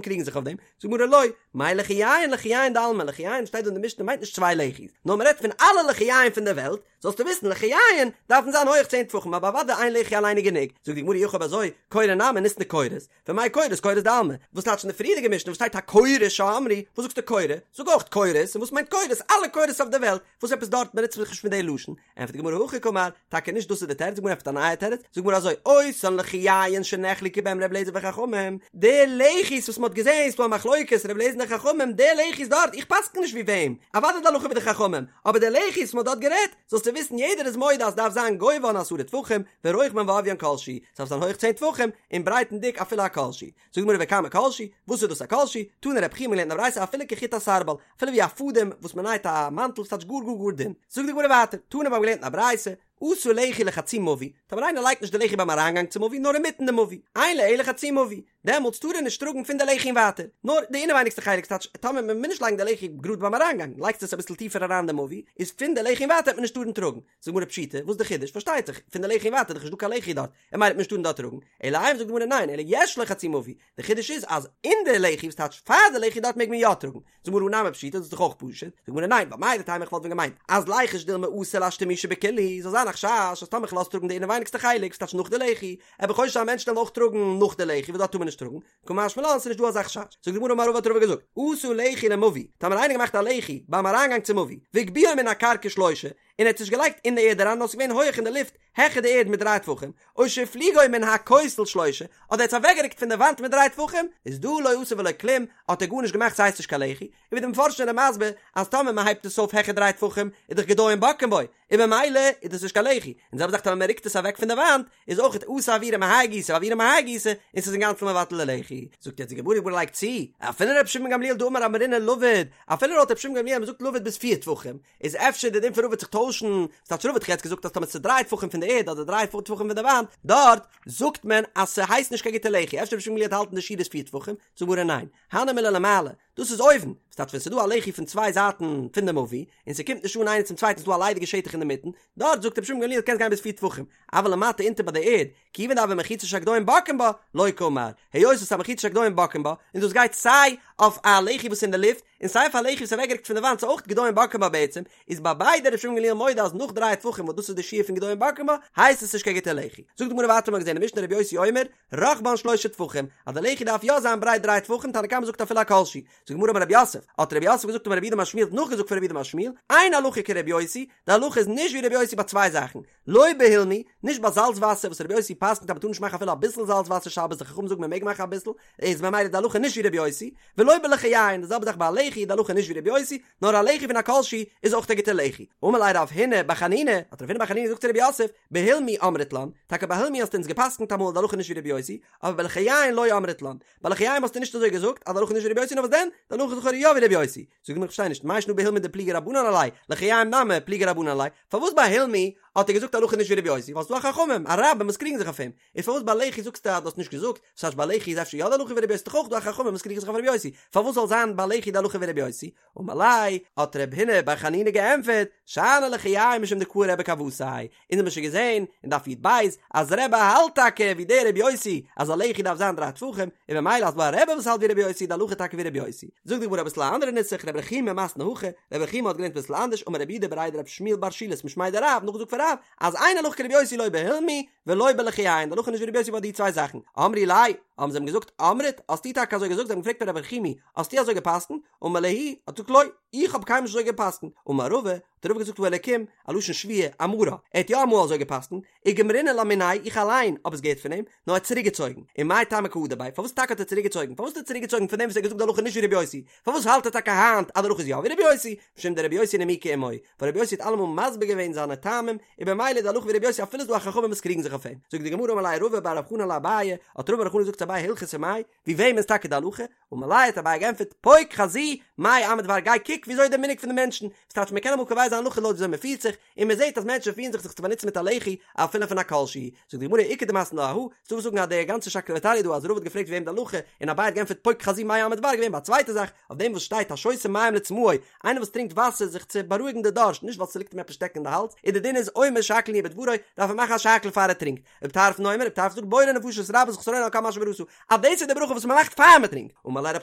קריגן זיך אויף דעם? זאגט די גמרא לא, מאי לחיין לחיין דעלמא, לחיין שטייט דא אין די משנה מיינט נישט צוויי לחי'ס, נאר מ'רעדט פון אלע לחיין פון די וועלט, זאלסטו וויסן לחיין דארפן זיין הויעך צען טפחים אבער אוודאי איין לחי אליין איז גענוג, זאגט די גמרא אי הכי אויב אזוי קורה נמי ניתני קורות, ומאי קורות קורות דעלמא, וואס טייטש אין די פריערדיגע משנה וואס שטייט הקורה שאמרו, וואס זאגסטו קורה, זאג אויך קורות, און וואס מיינט קורות, אלע קורות אויף די וועלט, וואס עפעס דארט באנוצט מען זיך נישט מיט די לשון, ענטפערט די גמרא הכי קאמר, טאקע נישט דאס איז די תירוץ, די גמרא ענטפערט א נייע תירוץ, זאגט די גמרא אזוי, אותן לחיין שנחלקו בהם ר' אליעזר וחכמים, די לחי'ס וואס מען האט געזען איז דא א מחלוקת ר' אליעזר און די חכמים, די לחי'ס דארט, איך פסקן נישט ווי וועם, אוודאי די הלכה ווי די חכמים, אבער די לחי'ס וואס מען האט דארט גערעדט, זאלסטו וויסן יעדער איז מודה אז ס'דארף זיין גובהן עשרה טפחים, ורוחבן ועוביין כל שהוא, ס'דארף זיין הויך צען טפחים, און ברייט און דיק אפילו א כל שהוא. זאגט די גמרא וכמה כל שהוא, וואס איז דאס א כל שהוא? תנא רב חייא מ'האט געלערנט אין א ברייתא אפילו כחוט הסרבל, אפילו ווי א פאדעם וואס מען נייט א מאנטל וואס טייטש גאר גאר גאר דין. זאגט די גמרא ווייטער, תנא מיר האבן געלערנט אין א ברייתא, עשה לחי לחצי מבוי, טאמער איינער לייגט נישט די לחי ביים אריינגאנג צום מבוי נאר אינמיטן די מבוי, אין לו אלא חצי מבוי, דעמאלטס טאר ער נישט טראגן פון די לחי און ווייטער, נאר די אינעווייניגסטע חלק, ס'טייטש טאמער מען מוז נישט לייגן די לחי גראד ביים אריינגאנג, לייגסט עס אביסל טיפער אריין די מבוי, איז פון די לחי און ווייטער וועט מען נישט טארן טראגן. זאגט די גמרא פשיטא, וואס איז די חידוש? פארשטייט זיך, פון די לחי און ווייטער איז דאך נישט דא קיין לחי דארט, און ממילא וועט מען נישט טארן דארט טראגן, אלא אימא זאגט די גמרא ניין, אלא יש לו חצי מבוי, די חידוש איז אז אין די לחי וואס טייטש פאר די לחי דארט מעג מען יא טראגן, זאגט די גמרא הא נמי פשיטא דאס איז דאך אויך פשוט, זאגט די גמרא ניין, ווייל מהו דתימא איך וואלט ווען געמיינט אז ליחוש דילמא אתי לאשתמושי בכולהו, זאל זיין א חשש אז טאמער כ'לאז טראגן די אינעווייניגסטע חלק וואס טייטש נאך די לחי, וועל איך חושש זיין מענטשן וועלן אויך טראגן נאך די לחי וואס דארט טאר מען נישט טראגן, קא משמע לן ס'איז נישט דא אזא חשש, זאגט די גמרא אמר רבא האט רבא געזאגט, עשה לחי למבוי, טאמער איינער געמאכט א לחי ביים אריינגאנג צום מבוי, והגביהו מן הקרקע שלושה, און ער האט עס נישט געלייגט אין די ערד אריין נאר עס איז געווען הויעך אין די לופט העכער די ערד מיט דריי טפחים, או שהפליגו מן הכותל שלושה, אדער ער האט עס אוועקגערוקט פון די וואנט מיט דריי טפחים, איז דא לא עשה ולא כלום, האט ער גארנישט געמאכט ס'הייסט נישט קיין לחי, און ווי די מפרשים זענען מסביר אז טאמער מ'הייבט עס אויף העכער דריי טפחים איז דאך גדיים בוקעין בו, און ממילא איז דאס נישט קיין לחי, און די זעלבע זאך טאמער מען רוקט עס אוועק פון די וואנט, איז אויך אתי אוירא מהאי גיסא ואוירא מהאי גיסא, און ס'איז אינגאנצן מבטל די לחי. זאגט יעצט די גמרא, די גמרא לייגט צו, אפילו רבי שמעון גמליאל דאמר אמרינן לבוד, אפילו לויט רבי שמעון גמליאל אז מען זאגט לבוד ביז פיר טפחים, איז אפשר די דין פון רבא וועט זיך טוישן, וואס טייטש רבא האט דאך יעצט געזאגט אז טאמער ס'איז דריי טפחים פון די ערד אדער דריי טפחים פון די וואנט, דארט זאגט מען אז ס'הייסט נישט קיין גוטע לחי, אפשר רבי שמעון גמליאל וועט האלטן די שיעור איז פיר טפחים, זאגט די גמרא ניין, הני מילי למעלה, דאס איז אויבן, וואס טייטש ווען ס'איז דא א לחי פון צוויי זייטן פון די מבוי, און ס'קומט נישט אן איינער צום צווייטן ס'איז דא א ליידיגע שטח אינדערמיטן, דארט זאגט רבי שמעון גמליאל קענסט גיין ביז פיר טפחים, אבל למטה אונטער ביי די ערד, כיוון דהוה מחיצה שהגדיים בוקעין בה, לא קאמר, היות עס איז א מחיצה שהגדיים בוקעין בה, און דאס גייט סיי אויף א לחי וואס איז אין די לופט, און סיי אויף א לחי וואס איז אוועקגערוקט פון די וואנט ס'איז אויך גדיים בוקעין בה בעצם, איז ביי ביידע רבי שמעון גמליאל מודה אז נאך דריי טפחים וואס דאס איז די שיעור פון גדיים בוקעין בה, הייסט עס נישט קיין גוטע לחי. זאגט די גמרא ווייטער מ'האט געזען אין משנה רבי יוסי אומר, רחבן שלושה טפחים, אז די לחי דארף יא זיין ברייט דריי טפחים, תנא קמא זאגט אפילו א כל שהוא. זאגט די גמרא אמר רב יוסף, האט רב יוסף געזאגט אמר רב יהודה אמר שמואל האט נאכגעזאגט פון רב יהודה אמר שמואל, אין הלכה כרבי יוסי, די הלכה איז נישט ווי רבי יוסי ביי צוויי זאכן, לא בהולמי, נישט ביי זאלץ וואסער וואס רבי יוסי פסק'נט אז מ'טאר נישט מאכן אפילו אביסל זאלץ וואסער שבת, די חכמים זאגן מ'מעג מאכן אביסל, איז ממילא די הלכה נישט ווי רבי יוסי, ולא בלחייין, די זעלבע זאך ביי א לחי איז די הלכה נישט ווי רבי יוסי, נאר א לחי פון א כל שהוא איז אויך א גוטע לחי. אמר ליה רב הונא בר חנינא, האט רב הונא בר חנינא געזאגט צו רב יוסף, בהולמי אמרת לן, טאקע ביי הולמי האסטו אונז געפסקנט אמאל די הלכה נישט ווי רבי יוסי, אבער בלחייין לא אמרת לן, ביי לחיים האסטו נישט אזוי געזאגט אז די הלכה נישט ווי רבי יוסי נאר וואס דען? די הלכה איז לכאורה יא ווי רבי יוסי. זאגט די גמרא איך פארשטיי נישט, מאי שנא בהולמי דפליגי רבנן עליה, לחיים נמי פליגי רבנן עליה, פארוואס ביי הולמי האט ער געזאגט הלכה נישט ווי רבי יוסי ווייל ס'דא א חכמים א רבים וואס קריגן זיך אויף אים, איז פארוואס ביי לחי זאגסטו אז דו האסט נישט געזאגט, וואס הייסט ביי לחי איז אפשר יא די הלכה ווי רבי יוסי ס'דאך אויך דא א חכמים וואס קריגן זיך אויף רבי יוסי, פארוואס זאל זיין ביי לחי די הלכה ווי רבי יוסי? אמר ליה, האט רב הונא בר חנינא געענטפערט, שאני לחיים משום דקאי רבי כוותיה, אונז האבן שוין געזען אין דף י"ב אז רבי האלט טאקע ווי דער רבי יוסי אז א לחי דארף זיין דריי טפחים, און ממילא אז דא א רבי וואס האלט ווי רבי יוסי איז די הלכה טאקע ווי רבי יוסי. זאגט די גמרא אביסל א אנדערע נוסח, רב רחומי מתני הכי, רב רחומי האט געלערנט אביסל אנדערש, אמר רב יהודה בריה דרב שמואל בר שילת משמיה דרב, נאכגעזאגט פון רב, אז אין הלכה כרבי יוסי לא בהולמי ולא בלחיים, די הלכה איז נישט ווי רבי יוסי ביי די צוויי זאכן, אמרי ליה. האבן זיי אים געזאגט, אמרת, האסטו טאקע אזוי געזאגט? זיי האבן געפרעגט פון רב רחומי, האסטו אזוי גע'פסק'נט? אמר להו, האט געזאגט לא, איך האב קיינמאל נישט אזוי גע'פסק'נט. אמר רבא, האט רבא געזאגט האלקים, א לשון שבועה, אמרה, ער האט יא אמאל אזוי גע'פסק'נט, וגמרינא לה מיניה, איך אליין האב עס געהערט פון אים, נאר ער האט צוריקגעצויגן. ומאי טעמא קא הדר ביה, פארוואס טאקע האט ער צוריקגעצויגן? פארוואס האט ער צוריקגעצויגן פון דעם וואס ער האט געזאגט די הלכה נישט ווי רבי יוסי? פארוואס האלט ער טאקע היינט אז די הלכה איז יא ווי רבי יוסי? משום דרבי יוסי נימוקו עמו, ווייל רבי יוסי האט אלעמאל מסביר געווען זיינע טעמים, און במילא איז די הלכה ווי רבי יוסי אפילו ס'איז דא א חכמים וואס קריגן זיך אויף אים. זאגט די גמרא אמר ליה רבא בר רב חנן לאביי, האט רבא בר חנן געזאגט צו אביי הלכתא מאי, ווי וועם איז טאקע די הלכה? אמר ליה האט אביי געענטפערט, פוק חזי מאי עמא דבר גיי קוק וויאזוי איז די מנהג פון די מענטשן, וואס טייטש מען קען אמאל קובע זיין הלכה לויט וויאזוי מען פירט זיך, און מען זעט אז מענטשן פירן זיך זיך צו באנוצן מיט א לחי אפילו פון א כל שהוא. זאגט די גמרא איכא דמתני לה אהא, ס'דא וואס זאגן אז די גאנצע שקלא וטריא דא אז רבא האט געפרעגט ווי וועם די הלכה, און אביי האט געענטפערט פוק חזי מאי עמא דבר געווען ביי א צווייטע זאך, אויף דעם וואס שטייט השותה מים לצמאו, איינער וואס טרינקט וואסער זיך צו בארואיגן די דארשט, נישט ווייל ס'ליגט אים עפעס שטעקן אין די האלז, און די דין איז אומר שהכל נהיה בדברו, דארף ער מאכן א שהכל פאר ער טרינקט. רבי טרפון אומר, רבי טרפון זאגט בורא נפשות רבות חסרונו על כל מה שבראת, אז דאס איז די ברכה וואס מ'מאכט פאר מ'טרינקט. אמר ליה רב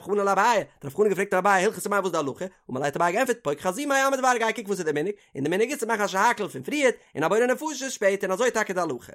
חנן לאביי, האט רב חנן געפרעגט אביי הלכתא מאי וואס איז די הלכה, אמר ליה האט אביי געענטפערט פוק חזי מאי עמא דבר גיי קוק וואס איז די מנהג, און די מנהג איז צו מאכן א שהכל פון פריערט, און א בורא נפשות שפעטער און אזוי איז טאקע די הלכה.